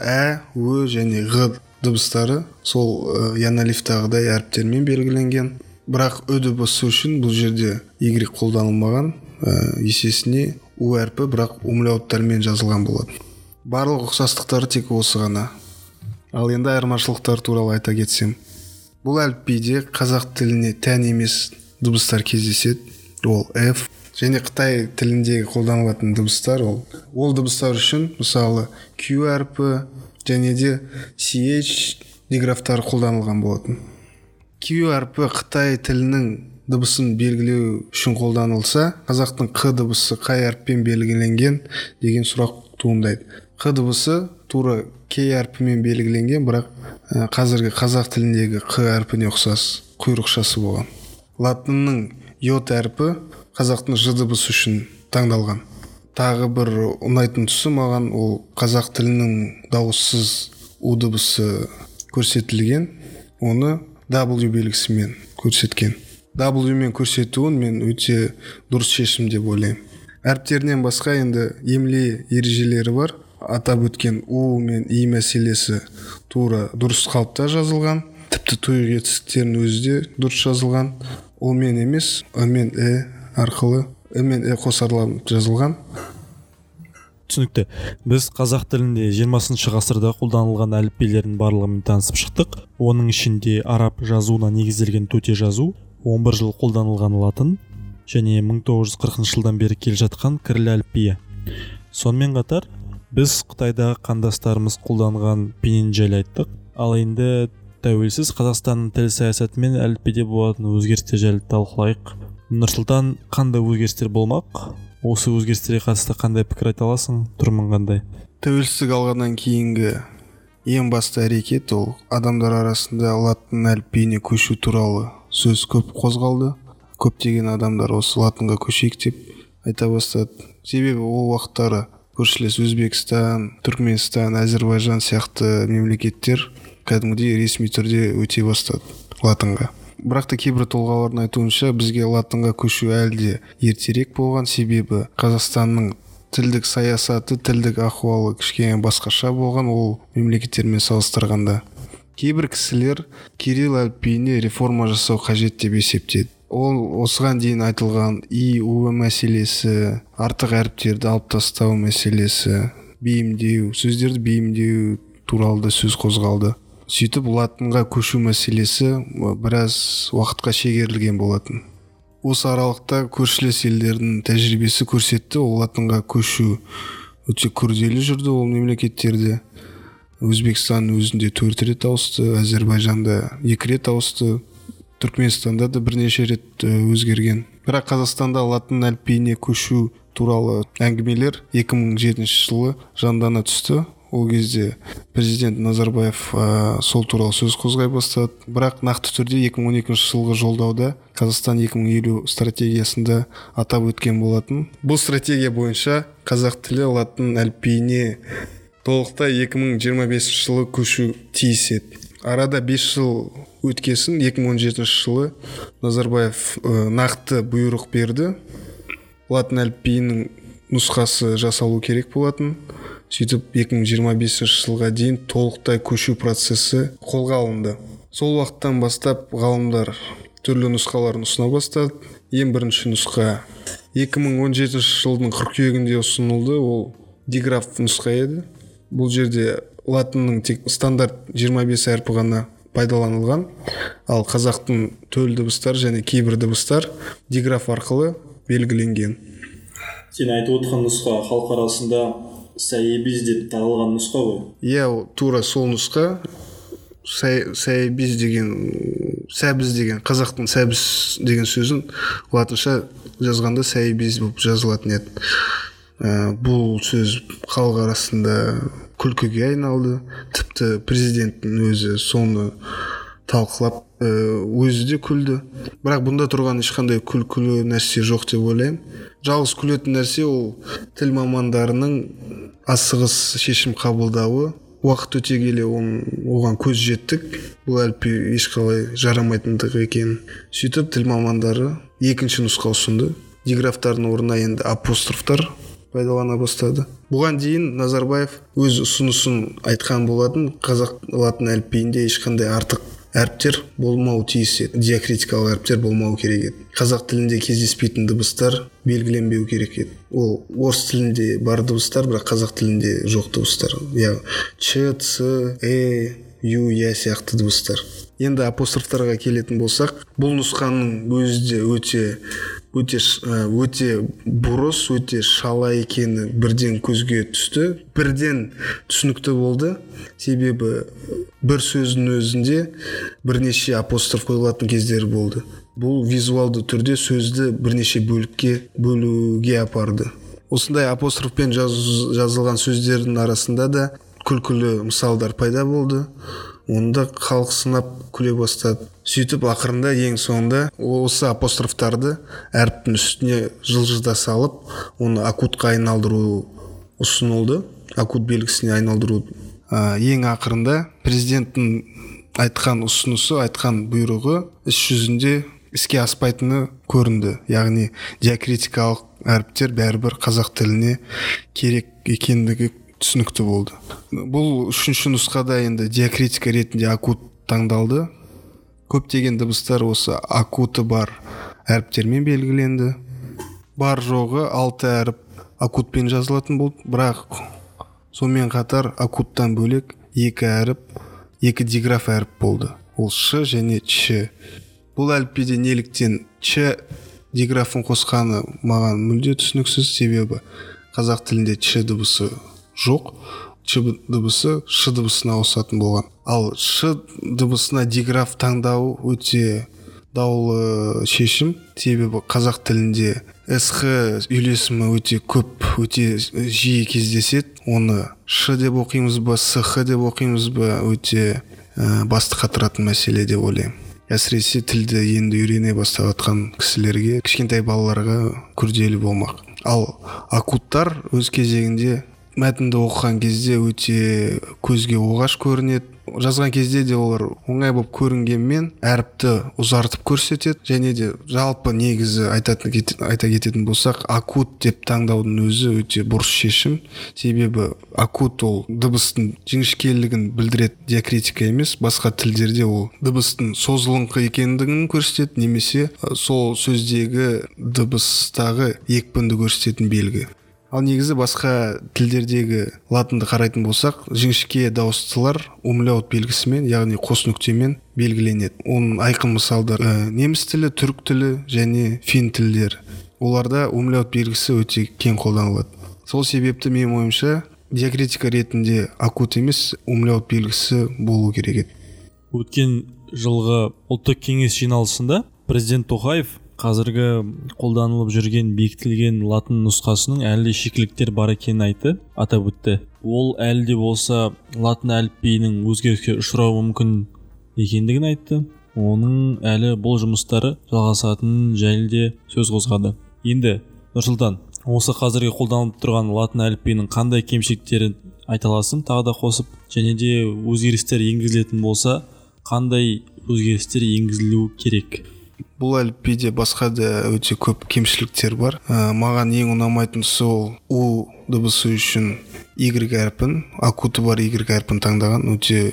B: ө және ғ дыбыстары сол яналифтағыдай әріптермен белгіленген. Бірақ ö дыбысы үшін бұл жерде y қолданылмаған, есесіне у әрпі бірақ умляуттармен жазылған болады. Барлық ұқсастықтары тек осы ғана. Ал енді айырмашылықтар туралы айта кетсем, бұл әліпбиде қазақ тіліне тән емес дыбыстар кездеседі. Ол f және Қытай тіліндегі қолданылатын дыбыстар ол дыбыстар үшін мысалы q әрпі және де ch диграфтары қолданылған болатын. Q әрпі Қытай тілінің дыбысын белгілеу үшін қолданылса, қазақтың қ дыбысы қай әріппен белгіленген деген сұрақ туындайды. Қ дыбысы тура к әрпімен белгіленген, бірақ қазіргі қазақ тіліндегі қ әрпіне ұқсас құйрықшасы болған. Латынның й әрпі қазақтың ж дыбысы үшін таңдалған. Тағы бір ұнайтын тұсы маған ол қазақ тілінің дауыссыз у дыбысы көрсетілген, оны W белгісімен көрсеткен. W мен көрсетуін мен өте дұрыс шешім деп ойлаймын. Әріптерінен басқа енді емле ережелері бар. Атап өткен у мен и мәселесі тура дұрыс қалыпта жазылған. Тіпті тұйық етістіктердің өзі де дұрыс жазылған. Ол мен емес, мен арқылы, мен қосарланып жазылған.
A: түсінікті. Біз қазақ тілінде 20 ғасырда қолданылған әліппелердің барлығымен танысып шықтық. Оның ішінде араб жазуына негізделген төте жазу, 11 жыл қолданылған латын және 1940 жылдан бері келе жатқан кіріл әліпбиі. Сонымен қатар біз Қытайдағы қандастарымыз қолданған пенен жайлы айттық. Ал енді тәуелсіз Қазақстанның тіл саясаты мен әліпбиде болатын өзгерістер жайлы талқылайық. Нұрсұлтан, қандай өзгерістер болмақ? Осы өзгерістерге қатысты қандай пікір айта аласың? Тұрмын қандай?
B: Тәуелсіздік алғаннан кейінгі ең басты әрекет ол адамдар арасында латын әліпбиіне көшу туралы сөз көп қозғалды. Көптеген адамдар осы латынға көшейік деп айта бастады. Себебі ол уақыттары көршілес Өзбекстан, Түркменстан, Әзербайжан сияқты мемлекеттер кәдімгідей ресми түрде өте бастады латынға. Бірақ та кейбір тұлғалардың айтуынша бізге латынға көшу әлде ертерек болған, себебі Қазақстанның тілдік саясаты, тілдік ахуалы кішкене басқаша болған ол мемлекеттермен салыстырғанда. Кейбір кісілер кирилл әліпбиіне реформа жасау қажет деп есептеді. Ол осыған дейін айтылған ИУ мәселесі, артық әріптерді алып тастау мәселесі, бейімдеу, сөздерді бейімдеу туралы да сөз қозғалды. Сөйтіп латынға көшу мәселесі біраз уақытқа шегерілген болатын. Осы аралықта көршілес елдердің тәжірибесі көрсетті, ол латынға көшу өте күрделі жүрді ол мемлекеттерде. Өзбекстанның өзінде 4 рет ауысты, Әзербайжанда 2 рет ауысты, Түркменстанда да бірнеше рет өзгерген. Бірақ Қазақстанда латын әліпбиіне көшу туралы әңгімелер 2007 жылы жандана түсті. Ол кезде президент Назарбаев сол туралы сөз қозғай бастады. Бірақ нақты түрде 2012 жылғы жолдауда Қазақстан 2050 стратегиясында атап өткен болатын. Бұл стратегия бойынша қазақ тілі латын әліпбиіне толықтай 2025 жылы көшу тиіс еді. Арада 5 жыл өткесін 2017 жылы Назарбаев нақты бұйрық берді. Латын әліпбиінің нұсқасы жасалу керек болатын. Сөйтіп 2025 жылға дейін толықтай көшу процесі қолға алынды. Сол уақыттан бастап ғалымдар түрлі нұсқаларын ұсына бастады. Ең бірінші нұсқа 2017 жылдың қыркүйегінде ұсынылды, ол диграф нұсқа еді. Бұл жерде латынның тек стандарт 25 әрпі ғана пайдаланылған, ал қазақтың төл дыбыстар және кейбір дыбыстар диграф арқылы белгіленген.
A: Сен айтып отырған нұсқа халық арасында сәйебіз деп таралған нұсқа ғой?
B: Иә, тура сол нұсқа. Сәйебіз деген, сәбіз деген, қазақтың сәбіз деген сөзін латынша жазғанда сәйебіз болып жазылатын еді. Бұл сөз халық арасында күлкіге айналды. Тіпті президенттің өзі соны талқылап өзі де күлді. Бірақ бұнда тұрған ешқандай күлкілі нәрсе жоқ деп ойлаймын. Жалғыз күлетін нәрсе ол тіл мамандарының асығыс шешім қабылдауы. Уақыт өте келе оған көз жеттік. Бұл әліпби ешқалай жарамайтындығы екен. Сөйтіп тіл мамандары екінші нұсқа ұсынды. Диграфтардың орнына енді апострофтар пайдалана бастады. Бұған дейін Назарбаев өз ұсынысын айтқан болатын, қазақ латын әліпбиінде ешқандай артық әріптер болмау тиіс еді, диакритикалық әріптер болмау керек еді. Қазақ тілінде кездеспейтін дыбыстар белгіленбеу керек еді. Ол орыс тілінде бар дыбыстар, бірақ қазақ тілінде жоқ дыбыстар. Ч, Ц, Ю, Я сияқты дыбыстар. Енді апострофтарға келетін болсақ, бұл нұсқаның өзі де өте бұрыс, өте шала екені бірден көзге түсті, бірден түсінікті болды. Себебі бір сөздің өзінде бірнеше апостроф қойылатын кездері болды. Бұл визуалды түрде сөзді бірнеше бөлікке бөлуге апарды. Осындай апострофпен жазылған сөздердің арасында да күлкілі мысалдар пайда болды. Онда халық сынап күле бастады. Сөйтіп ақырында ең соңында осы апострофтарды әріптің үстіне жылжыда салып, оны акутқа айналдыру ұсынылды. Акут белгісіне айналдыру. Ең ақырында президенттің айтқан ұсынысы, айтқан бұйрығы іс жүзінде іске аспайтыны көрінді. Яғни диакритикалық әріптер бәрібір қазақ тіліне керек екендігі түсінікті болды. Бұл үшінші нұсқада енді диакритика ретінде акут таңдалды. Көптеген дыбыстар осы акуты бар әріптермен белгіленді. бар жоғы 6 әріп акутпен жазылатын болды, бірақ сонымен қатар акуттан бөлек 2 әріп, 2 диграф әріп болды. Ол ш және ч. Бұл әліпбиде неліктен ч диграфын қосқаны маған мүлде түсініксіз, себебі қазақ тілінде ч дыбысы жоқ, ч дыбысы ш дыбысына ауысатын болған. Ал ш дыбысына диграф таңдау өте даулы шешім, себебі қазақ тілінде сх үйлесімі өте көп, өте жиі кездеседі. Оны ш деп оқимыз ба, сх деп оқимыз ба, өте басты қатыратын мәселе деп ойлаймын. Әсіресе тілді енді үйрене баставатқан кісілерге, кішкентай балаларға күрделі болмақ. Ал акуттар өз кезегінде мәтінді оқыған кезде өте көзге оғаш көрінеді. Жазған кезде де олар оңай болып көрінгенмен әріпті ұзартып көрсетеді, және де жалпы негізі айта кететін болсақ, акут деп таңдаудың өзі өте бұрыс шешім, себебі акут ол дыбыстың жіңішкелігін білдіреді, диакритика емес. Басқа тілдерде ол дыбыстың созылыңқы екендігін көрсетеді, немесе сол сөздегі дыбыстағы екпінді көрсететін белгі. Ал негізі басқа тілдердегі латынды қарайтын болсақ, жіңішке дауыстылар умляут белгісімен, яғни қос нүктемен белгіленеді. Оның айқын мысалдары неміс тілі, түрік тілі және фин тілдері. Оларда умляут белгісі өте кең қолданылады. Сол себепті менің ойымша диакритика ретінде акут емес, умляут белгісі болу керек еді.
A: Өткен жылғы ұлттық кеңес жиналысында президент Тоқаев қазіргі қолданылып жүрген бекітілген латын нұсқасының әлі шикіліктер бар екенін атап өтті. Ол әлі де болса латын әліпбиінің өзгеріске ұшырауы мүмкін екендігін айтты. Оның әлі бұл жұмыстары жалғасатынын жайлы де сөз қозғады. Енді Нұрсұлтан, осы қазіргі қолданылып тұрған латын әліпбиінің қандай кемшіліктерін айта аласың тағы да қосып, және де өзгерістер енгізілетін болса, қандай өзгерістер енгізілуі керек?
B: Бұл әліпбиде басқа да өте көп кемшіліктер бар. Маған ең ұнамайтын сол у дыбысы үшін y әрпін, акуты бар y әрпін таңдаған өте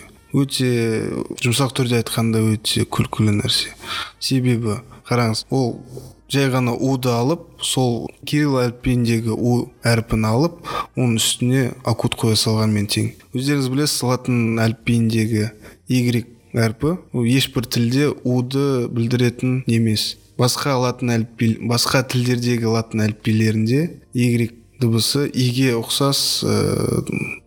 B: жұмсақ түрде айтқанда өте күлкілі нәрсе. Себебі қараңыз, ол жай ғана уды алып, сол кирилл әліпбиіндегі у әрпін алып, оның үстіне акут қоя салғанмен тең. Өздеріңіз білесіз, латын әліпбиіндегі y әрпі ешбір тілде уды білдіретін емес. Басқа тілдердегі латын әліпбилерінде y дыбысы иге ұқсас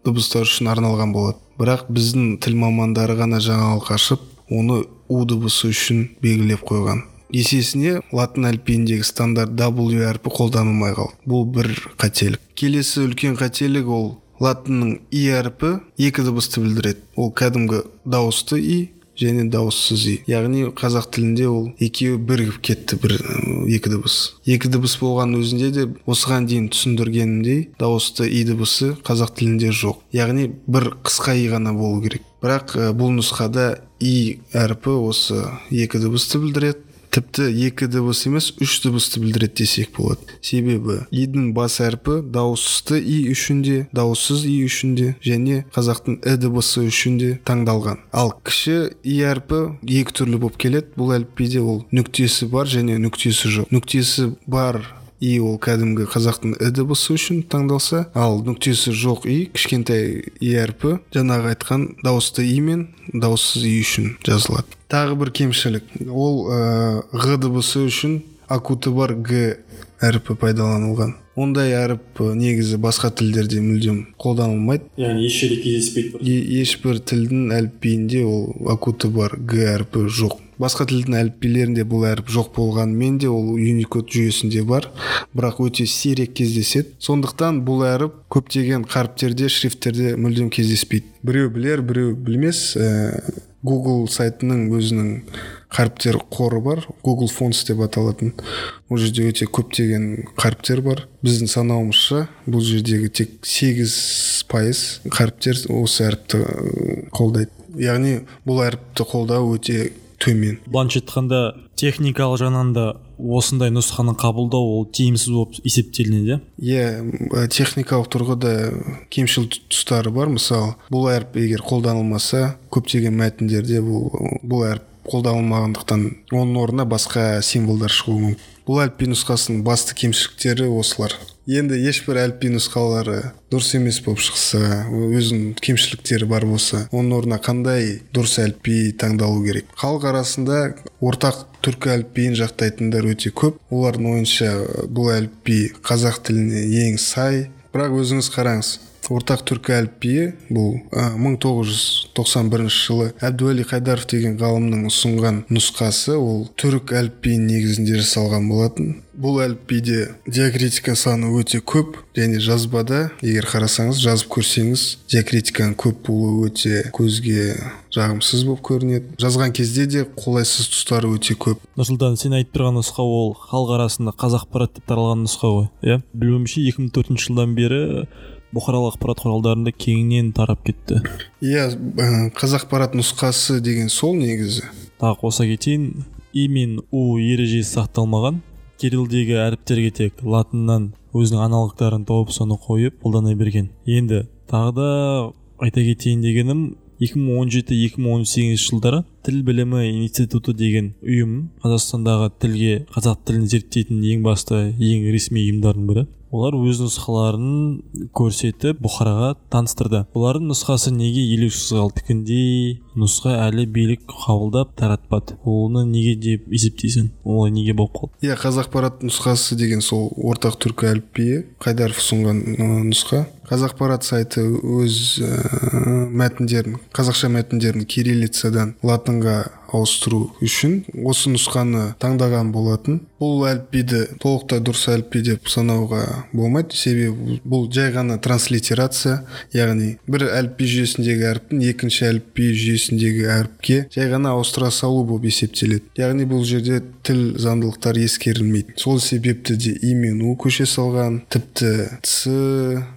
B: дыбыстар үшін арналған болады. Бірақ біздің тіл мамандары ғана жаңалық ашып, оны у дыбысы үшін белгілеп қойған. Есесіне латын әліпбиіндегі стандарт W әрпі қолданылмай қалды. Бұл бір қателік. Келесі үлкен қателік ол латынның и әрпі 2 дыбысты білдіреді. Ол кәдімгі дауысты и және дауыссыз и. Яғни қазақ тілінде ол екеуі бірігіп кетті, 2 дыбыс. 2 дыбыс болған өзінде де осыған дейін түсіндіргенімдей дауысты и дыбысы қазақ тілінде жоқ. Яғни бір қысқа и ғана болу керек. Бірақ бұл нұсқада и әрпі осы 2 дыбысты білдіреді. Тіпті 2 дыбыс емес, 3 дыбысты білдіреді десек болады. Себебі идің бас әрпі дауысты и үшінде, дауыссыз и үшінде және қазақтың дыбысы үшінде таңдалған. Ал кіші и әрпі 2 түрлі болып келеді. Бұл әліпбиде ол нүктесі бар және нүктесі жоқ. Нүктесі бар и ол кәдімгі қазақтың дыбысы үшін таңдалса, ал нүктесі жоқ и, кішкентай и әрпі жаңағы айтқан дауысты и мен дауыссыз и үшін жазылады. Тағы бір кемшілік, ол ғ дыбысы үшін акуты бар г әрпі пайдаланылған. Ондай әріп негізі басқа тілдерде мүлдем қолданылмайды.
A: Яғни еш жерде кездеспейді.
B: Ешбір тілдің әліпбиінде ол акуты бар г әрпі жоқ. Басқа тілдің әліпбилерінде бұл әріп жоқ болғанымен де ол Unicode жүйесінде бар, бірақ өте сирек кездеседі. Сондықтан бұл әріп көптеген қаріптерде, шрифттерде мүлдем кездеспейді. Біреу білер, біреу білмес. Google сайтының өзінің қаріптер қоры бар, Google Fonts деп аталатын. Ол жерде өте көптеген қаріптер бар. Біздің санауымызша бұл жердегі тек 8% қаріптер осы әріпті қолдайды. Яғни бұл әріпті қолдау өте төмен.
A: Былайша айтқанда техникалық жағынан да осындай нұсқаны қабылдау ол тиімсіз болып есептелінеді.
B: Техникалық тұрғыда кемшіл тұстары бар. Мысалы, бұл әріп егер қолданылмаса, көптеген мәтіндерде бұл әріп қолданылмағандықтан оның орнына басқа символдар шығуы мүмкін. Бұл әліпби нұсқасының басты кемшіліктері осылар. Енді ешбір әліпби нұсқалары дұрыс емес болып шықса, өзінің кемшіліктері бар болса, оның орнына қандай дұрыс әліпби таңдалу керек? Халық арасында ортақ түркі әліпбиін жақтайтындар өте көп. Олардың ойынша бұл әліпби қазақ тіліне ең сай. Бірақ өзіңіз қараңыз, ортақ түркі әліпбиі бұл 1991 жылы Әбдуәли Қайдаров деген ғалымның ұсынған нұсқасы, ол түрік әліпбиінің негізінде жасалған болатын. Бұл әліпбиде диакритика саны өте көп, және жазбада, егер қарасаңыз, жазып көрсеңіз, диакритиканың көп болуы өте көзге жағымсыз болып көрінеді. Жазған кезде де қолайсыз тұстары өте көп.
A: Нұрсұлтан, сен айтып тұрған нұсқа ол халық арасында Қазақпарат деп таралған нұсқа ғой, иә? Білуімше 2004 жылдан бері бұқаралық ақпарат құралдарында кеңінен тарап кетті.
B: Иә, Қазақпарат нұсқасы деген сол негізі.
A: Тағы қоса кетейін, и мен у ережесі сақталмаған. Кириллдегі әріптерге тек латыннан өзінің аналогтарын тауып соны қойып қолдана берген. Енді тағы да айта кетейін дегенім, 2017-2018 жылдары Тіл білімі институты деген ұйым Қазақстандағы қазақ тілін зерттейтін ең басты, ең ресми ұйымдардың бірі. Олар өз нұсқаларын көрсетіп бұқараға таныстырды. Олардың нұсқасы неге елеусіз қалды? Тікіндей нұсқа әлі билік қабылдап таратпады. Оны неге деп есептейсің? Олай неге болып қалды?
B: Иә, Қазақпарат нұсқасы деген сол ортақ түркі әліпбиі, Қайдаров ұсынған нұсқа. Қазақпарат сайты өз мәтіндерін, қазақша мәтіндерін кириллицадан латынға ауыстыру үшін осы нұсқаны таңдаған болатын. Бұл әліпбиді толықтай дұрыс әліпби деп санауға болмайды, себебі бұл жай ғана транслитерация, яғни бір әліпби жүйесіндегі әріптің екінші әліпби жүйесіндегі әріпке жай ғана ауыстыра салу болып есептеледі. Яғни бұл жерде тіл заңдылықтары ескерілмейді. Сол себепті де и мен у көше салған, тіпті ц,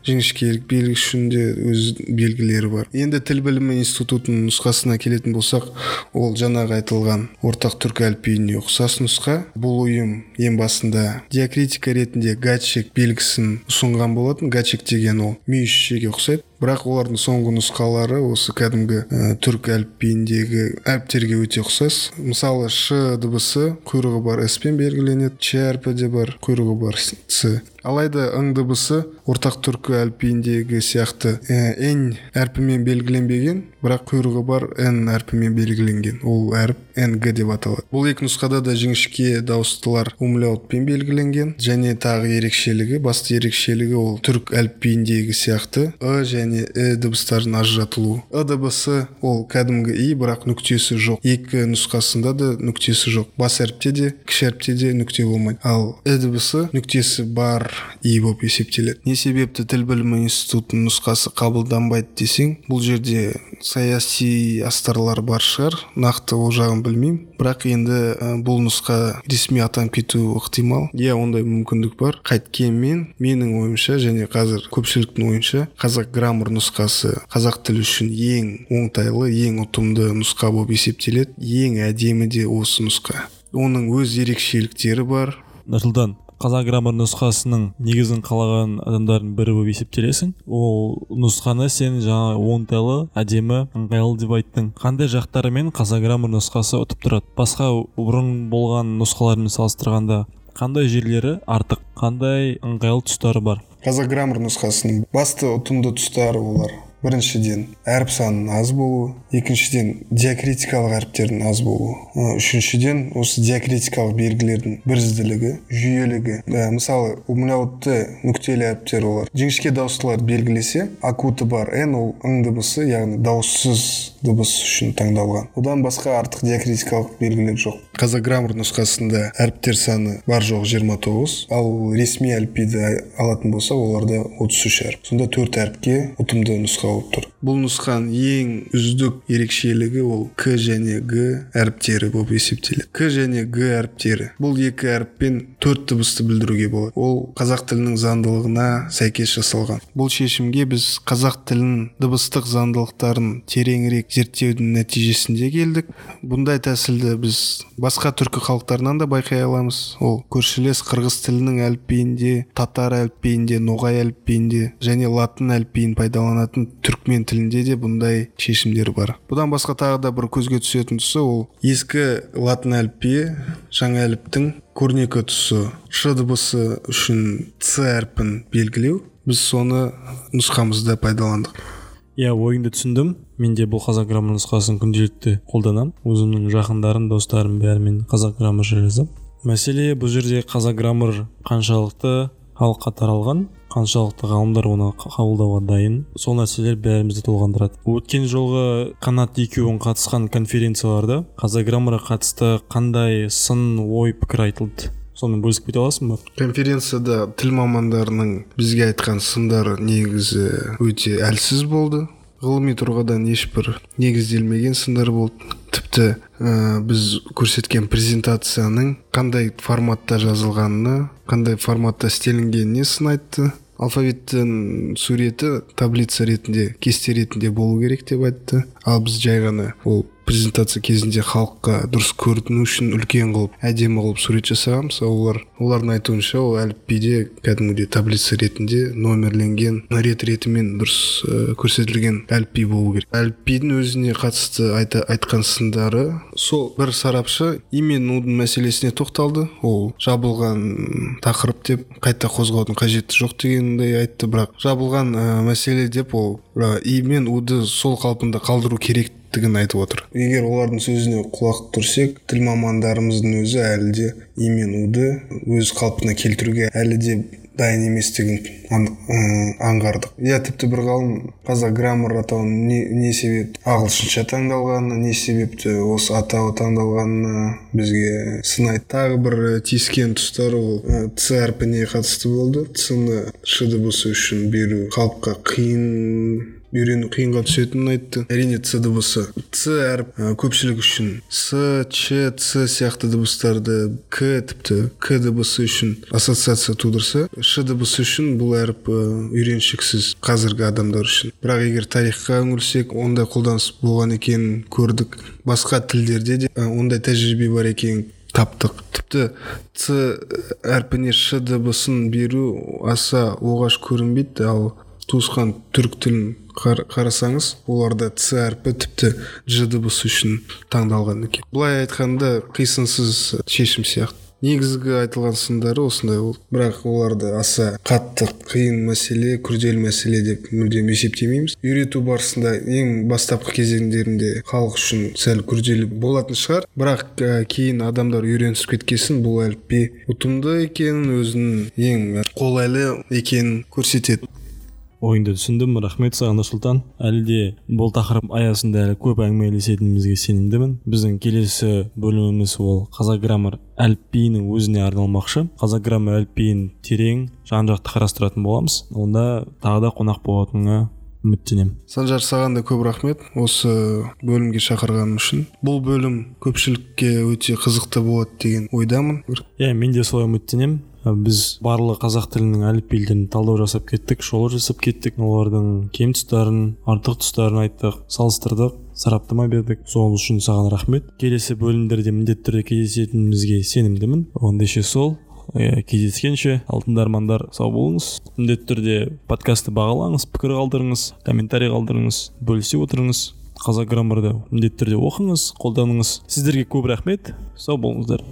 B: жіңішкелік белгі үшін де өз белгілері бар. Енді тіл білімі институтының нұсқасына келетін болсақ, ол жаңағы айтылған ортақ түркі әліпбиіне ұқсас нұсқа. Бұл ұйым ең басында диакритика ретінде гачек белгісін ұсынған болатын. Гачек деген ол мүйізшеге ұқсайды. Бірақ олардың соңғы нұсқалары осы кәдімгі түрк әліпбиіндегі әріптерге өте ұқсас. Мысалы, ш дыбысы құйрығы бар с-пен белгіленеді, ч әрпі де бар, құйрығы бар с. Алайда ң дыбысы ортақ түркі әліпбиіндегі сияқты н әрпімен белгіленбеген, бірақ құйрығы бар н әрпімен белгіленген. Ол әріп нг деп аталады. Бұл екі нұсқада да жіңішке дауыстылар умляутпен белгіленген, және тағы ерекшелігі, басты ерекшелігі ол түрк әліпбиіндегі сияқты және дыбыстардың ажыратылуы. Дыбысы ол кәдімгі и, бірақ нүктесі жоқ. Екі нұсқасында да нүктесі жоқ. Бас әріпте де, кіші әріпте де нүкте болмайды. Ал дыбысы нүктесі бар и болып есептеледі. Не себепті тіл білімі институтының нұсқасы қабылданбайды десең, бұл жерде саяси астарлар бар шығар, нақты ол жағын білмеймін. Бірақ енді бұл нұсқа ресми атанып кетуі ықтимал. Иә, ондай мүмкіндік бар. Қайткенмен, менің ойымша және қазір көпшіліктің ойынша қазақ граммар нұсқасы қазақ тілі үшін ең оңтайлы, ең ұтымды нұсқа болып есептеледі. Ең әдемі де осы нұсқа. Оның өз ерекшеліктері бар.
A: Нұрсұлтан, қазақ граммар нұсқасының негізін қалаған адамдардың бірі болып есептелесің. Ол нұсқаны сен жаңа оңтайлы, әдемі, ыңғайлы деп айттың. Қандай жақтарымен қазақ граммар нұсқасы ұтып тұрады? Басқа бұрын болған нұсқалармен салыстырғанда қандай жерлері артық, қандай ыңғайлы тұстары бар?
B: Қазақ граммар нұсқасының басты ұтымды тұстары олар: біріншіден, әріп санының аз болуы, екіншіден, диакритикалық әріптердің аз болуы, үшіншіден, осы диакритикалық белгілердің бірізділігі, жүйелігі. Мысалы, умляутты нүктелі әріптер олар жіңішке дауыстылар белгілесе, акуты бар н, ол ң дыбысы, яғни дауыссыз дыбыс үшін таңдалған. Одан басқа артық диакритикалық белгілер жоқ. Қазақ граммар нұсқасында әріптер саны бар жоқ 29, ал ресми әліпбиді алатын болса, оларда 33 әріп. Сонда 4 әріпке ұтымды нұсқа болып тұр. Бұл нұсқаның ең үздік ерекшелігі ол к және г әріптері болып есептеледі. К және г әріптері. Бұл екі әріппен 4 дыбысты білдіруге болады. Ол қазақ тілінің заңдылығына сәйкес жасалған. Бұл шешімге біз қазақ тілінің дыбыстық заңдылықтарын тереңірек зерттеудің нәтижесінде келдік. Бұндай тәсілді біз басқа түркі халықтарынан да байқай аламыз. Ол көршілес қырғыз тілінің әліпбиінде, татар әліпбиінде, ноғай әліпбиінде және латын әліпбиін пайдаланатын түркмен тілінде де бұндай шешімдер бар. Бұдан басқа тағы да бір көзге түсетін тұсы ол ескі латын әліпбиі жаңа әліптің көрнекі тұсы ш дыбысы үшін ц әрпін белгілеу. Біз соны нұсқамызда пайдаландық.
A: Ойыңды түсіндім. Менде бұл қазақ граммар нұсқасын күнделікті қолданам. Өзімнің жақындарым, достарым бәрімен қазақ граммар жазам. Мәселе бұл жерде қазақ граммар қаншалықты халыққа таралған, қаншалықты ғалымдар оны қабылдауға дайын, сол нәрселер бәрімізді толғандырады. Өткен жолғы қанат екеуің қатысқан конференцияларда қазақ граммарға қатысты қандай сын, ой, пікір айтылды? Соны бөлісіп кете аласың ба?
B: Конференцияда тіл мамандарының бізге айтқан сындары негізі өте әлсіз болды. Ғылыми тұрғыдан ешбір негізделмеген сындар болды. Тіпті біз көрсеткен презентацияның қандай форматта жазылғанына, қандай форматта істелінгеніне сын айтты. Алфавиттің суреті таблица ретінде, кесте ретінде болу керек деп айтты. Ал біз жай ғана ол презентация кезінде халыққа дұрыс көріну үшін үлкен қылып, әдемі қылып сурет жасағанбыз. Олардың айтуынша ол әліпбиде кәдімгідей таблица ретінде номерленген, ретімен дұрыс көрсетілген әліпби болу керек. Әліпбидің өзіне қатысты айтқан сындары, сол бір сарапшы и мен удың мәселесіне тоқталды. Ол жабылған тақырып деп қайта қозғаудың қажеті жоқ дегенді айтты, бірақ жабылған мәселе деп ол и мен уды сол қалпында қалдыру керектігін айтып отыр. Егер олардың сөзіне құлақ түрсек, тіл мамандарымыздың өзі әлі де и мен уды өз қалпына келтіруге әлі де дайын еместігін аңғардық. Тіпті бір ғалым қазақ граммар атауын не себеп ағылшынша таңдалғанына, не себепті осы атауы таңдалғанына бізге сын айтты. Тағы бір тиіскен тұстары ол ц әрпіне қатысты болды. Ц-ны ш дыбысы үшін беру халыққа үйрену қиынға түсетінін айтты. Әрине ц дыбысы. Ц әріп көпшілік үшін с, ч, ц сияқты дыбыстарды тіпті к дыбысы үшін ассоциация тудырса, ш дыбысы үшін бұл әріп үйреншіксіз қазіргі адамдар үшін. Бірақ егер тарихқа үңілсек, ондай қолданыс болған екенін көрдік. Басқа тілдерде де ондай тәжірибе бар екенін таптық. Тіпті ц әрпіне ш дыбысын беру аса оғаш көрінбейді, ал туысқан түрік тілін қарасаңыз, оларда ц әрпі тіпті ж дыбысы үшін таңдалған екен. Бұлай айтқанда қисынсыз шешім сияқты. Негізгі айтылған сындары осындай болды. Бірақ оларды аса қатты қиын мәселе, күрделі мәселе деп мүлдем есептемейміз. Үйрету барысында ең бастапқы кезеңдерінде халық үшін сәл күрделі болатын шығар. Бірақ кейін адамдар үйренісіп кеткесін бұл әліпби ұтымды екенін, өзінің ең қолайлы екенін көрсетеді.
A: Ойыңды түсіндім, рахмет саған Нұрсұлтан. Әлі де бұл тақырып аясында әлі көп әңгімелесетінімізге сенімдімін. Біздің келесі бөліміміз ол қазақ граммар әліпбиінің өзіне арналмақшы. Қазақ граммар әліпбиін терең, жан-жақты қарастыратын боламыз. Онда тағы да қонақ болатыныңа үміттенемін.
B: Санжар, саған да көп рахмет осы бөлімге шақырғаным үшін. Бұл бөлім көпшілікке өте қызықты болады деген ойдамын.
A: Мен де солай үміттенемін. Біз барлық қазақ тілінің әліпбилерін талдау жасап кеттік, шолу жасап кеттік. Олардың кем тұстарын, артық тұстарын айттық, салыстырдық, сараптама бердік. Сол үшін саған рахмет. Келесі бөлімдерде міндетті түрде кездесетінімізге сенімдімін. Ондайше сол. Кездескенше алтындармандар сау болыңыз. Міндетті түрде подкасты бағалаңыз, пікір қалдырыңыз, комментарий қалдырыңыз, бөлісе отырыңыз. Қазақ граммарды міндетті түрде оқыңыз, қолданыңыз. Сіздерге көп рахмет. Сау болыңыздар.